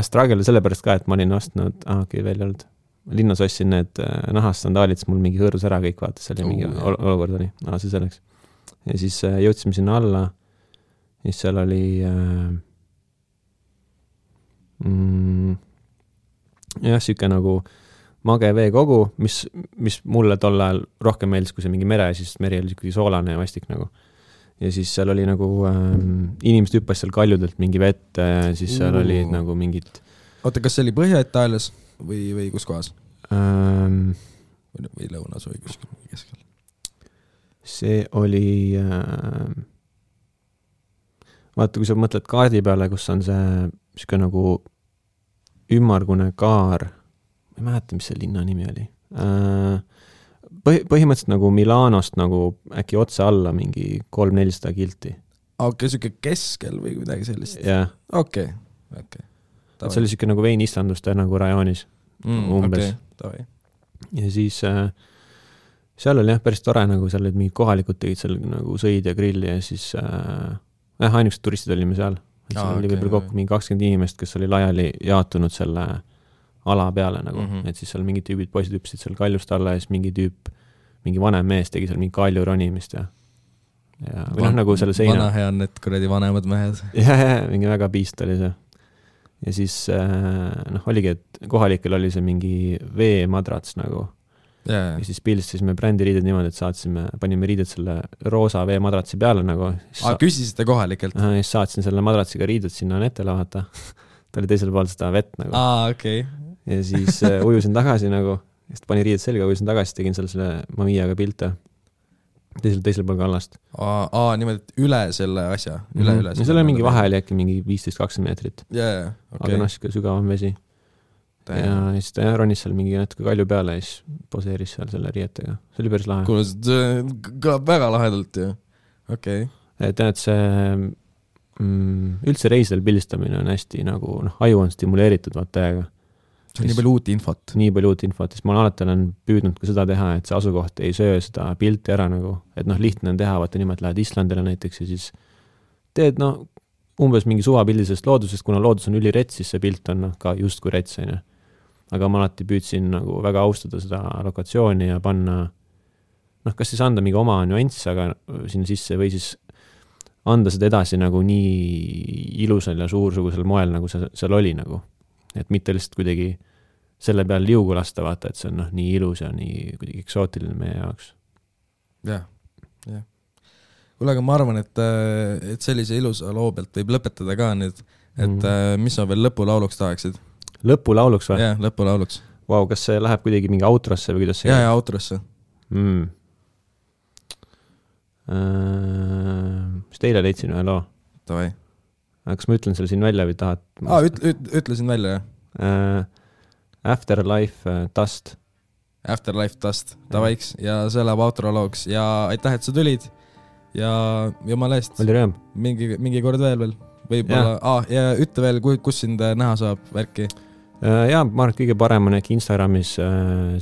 struggle sellepärast ka, et ma olin ostnud, veel ei olnud. Linnas ostsin need nahastandaalid, siis mul mingi hõõrus ära kõik, vaata, see oli mingi olukord oli. See selleks. Ja siis jõudsime sinna alla, siis seal oli siuke nagu mage veekogu, mis mulle tol ajal rohkem meeldis, kui see mingi mere, siis meri oli ikkagi soolane ja vastik nagu. Ja siis seal oli nagu inimesed hüppas seal kaljudelt mingi vett, siis seal oli nagu mingid... Oota, kas see oli Põhja-Itaalias või kus kohas? Või lõunas või kuskil keskel? See oli... Vaata, kui sa mõtled kaardi peale, kus on see siuke nagu ümmargune kaar, ma ei mäleta, mis see linna nimi oli. Põhimõtteliselt nagu Milanost nagu äkki otse alla mingi 300-400 kilti. Okei, siuke keskel või midagi sellist? Jah. Okei. See oli siuke nagu veinistanduste nagu rajoonis umbes. Okay. Ja siis seal oli päris tore, nagu seal olid mingid kohalikud tegid seal nagu sõid ja grilli ja siis ainukesed turistid olime seal. Seal oli võib-olla kokku mingi 20 inimest, kes oli laiali jaotunud selle ala peale nagu, et siis seal mingid tüübid poisid hüpsid seal kaljust alla ja siis mingi vanem mees tegi seal mingi kalju ronimist ja või nagu selle seina. Vana hea on need kuradi vanemad mehed. Ja, mingi väga piist oli see. Ja siis oligi, et kohalikel oli see mingi veemadrats nagu. Ja siis pildistasime brändiriided niimoodi, et panime riided selle roosa veemadratsi peale nagu. Küsisite kohalikelt? Ja siis saatsin selle madratsiga riided sinna netele vaata. Ta oli teisel pool seda vett nagu. Okay. Ja siis ujusin tagasi nagu, siis pani riided selga, ujusin tagasi, tegin selle Mamiaga pilte. teisel pool kallast. Niimoodi, et üle selle asja, üle. Ja seal on mingi vahe oli äkki mingi 15-20 meetrit. Okay. Aga siuke sügavam vesi. Ja siis ta ronis seal mingi natuke kalju peale ja siis poseeris seal selle riietega. See oli päris lahe. Kuule, see kõlab väga lahedalt ju. Okay. Et see üldse reisidel pildistamine on hästi nagu, aju on stimuleeritud vaatajaga. See on nii palju uut infot. Nii palju uut infot, siis ma alati olen püüdnud ka seda teha, et see asukoht ei söö seda pilti ära nagu, et lihtne on teha, vaata niimoodi lähed Islandile näiteks ja siis teed umbes mingi suvapildisest loodusest, kuna loodus on ülirets, siis see pilt on ka just kui rets, on ju. Aga ma alati püüdsin nagu väga austada seda lokatsiooni ja panna, kas siis anda mingi oma nüanss, aga sinna sisse või siis anda seda edasi nagu nii ilusal ja suursugusel moel, nagu see seal oli nagu. Et mitte lihtsalt kuidagi selle peal liugu lasta vaata, et see on nii ilus ja nii kuidagi eksootiline meie jaoks. Jah. Kuule, aga ma arvan, et sellise ilusa loo pealt võib lõpetada ka nüüd, et mis sa veel lõpulauluks tahaksid? Lõpulauluks või? Jah, lõpulauluks. Vau, kas see läheb kuidagi mingi outrosse või kuidas see? Ja outrosse. Mis teile leidsin ühe loo? Tavai. Kas ma ütlen selle siin välja või tahad? Ütlesin välja, jah. Afterlife Dust. Afterlife Dust, tavaiks. Ja see läheb outrolooks. Ja aitäh, et sa tulid. Ja jumala eest. Oli rõõm. Mingi kord veel. Võib-olla. Ja ütle veel, kus sind näha saab värki? Ja, ma arvan, kõige parem on äkki Instagramis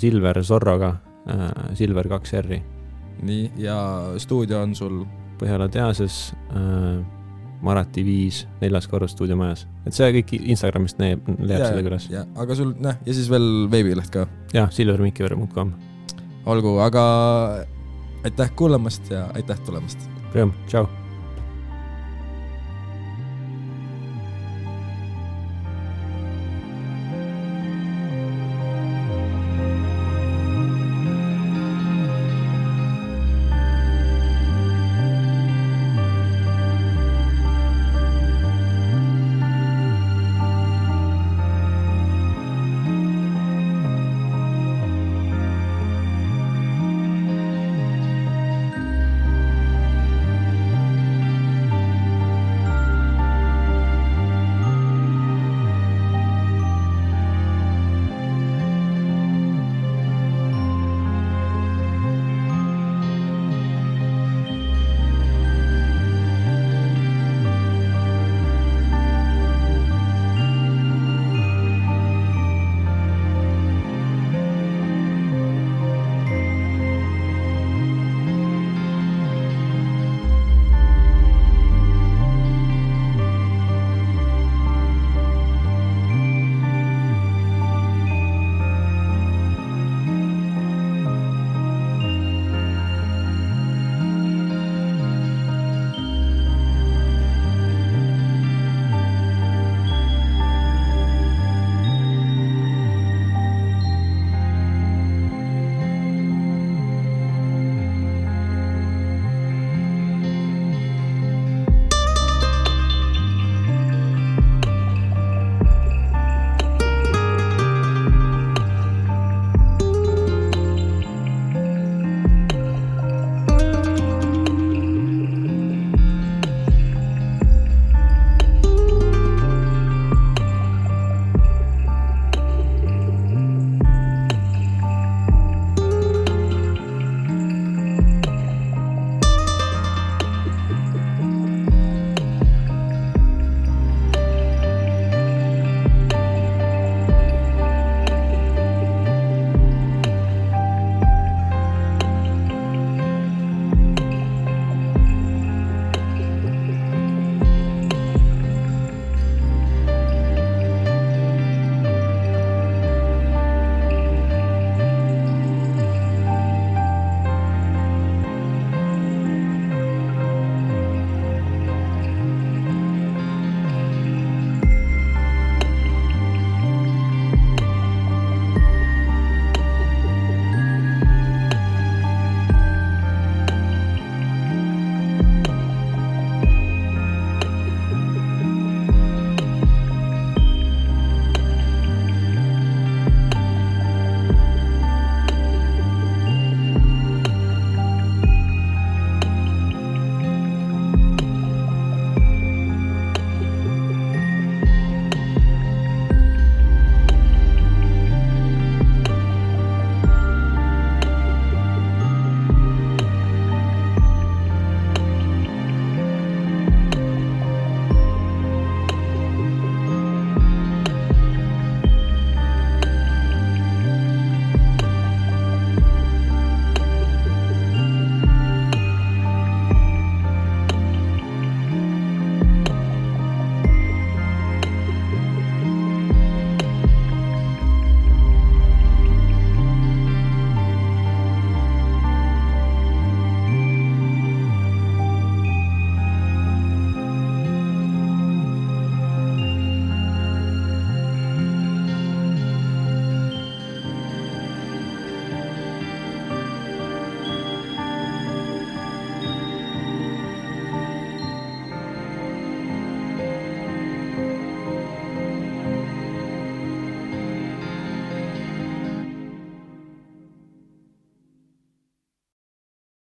Silver Zorroga, Silver 2R. Nii, ja stuudio on sul? Põhjala teases, Marati 5, 4. korrus stuudiomajas. Et see kõik Instagramist leiab selle külas. Ja, aga sul, ja siis veel veebileht ka? Ja, silvermikiver.com. Olgu, aga aitäh kuulamast ja aitäh tulemast. Rõõm, tšau!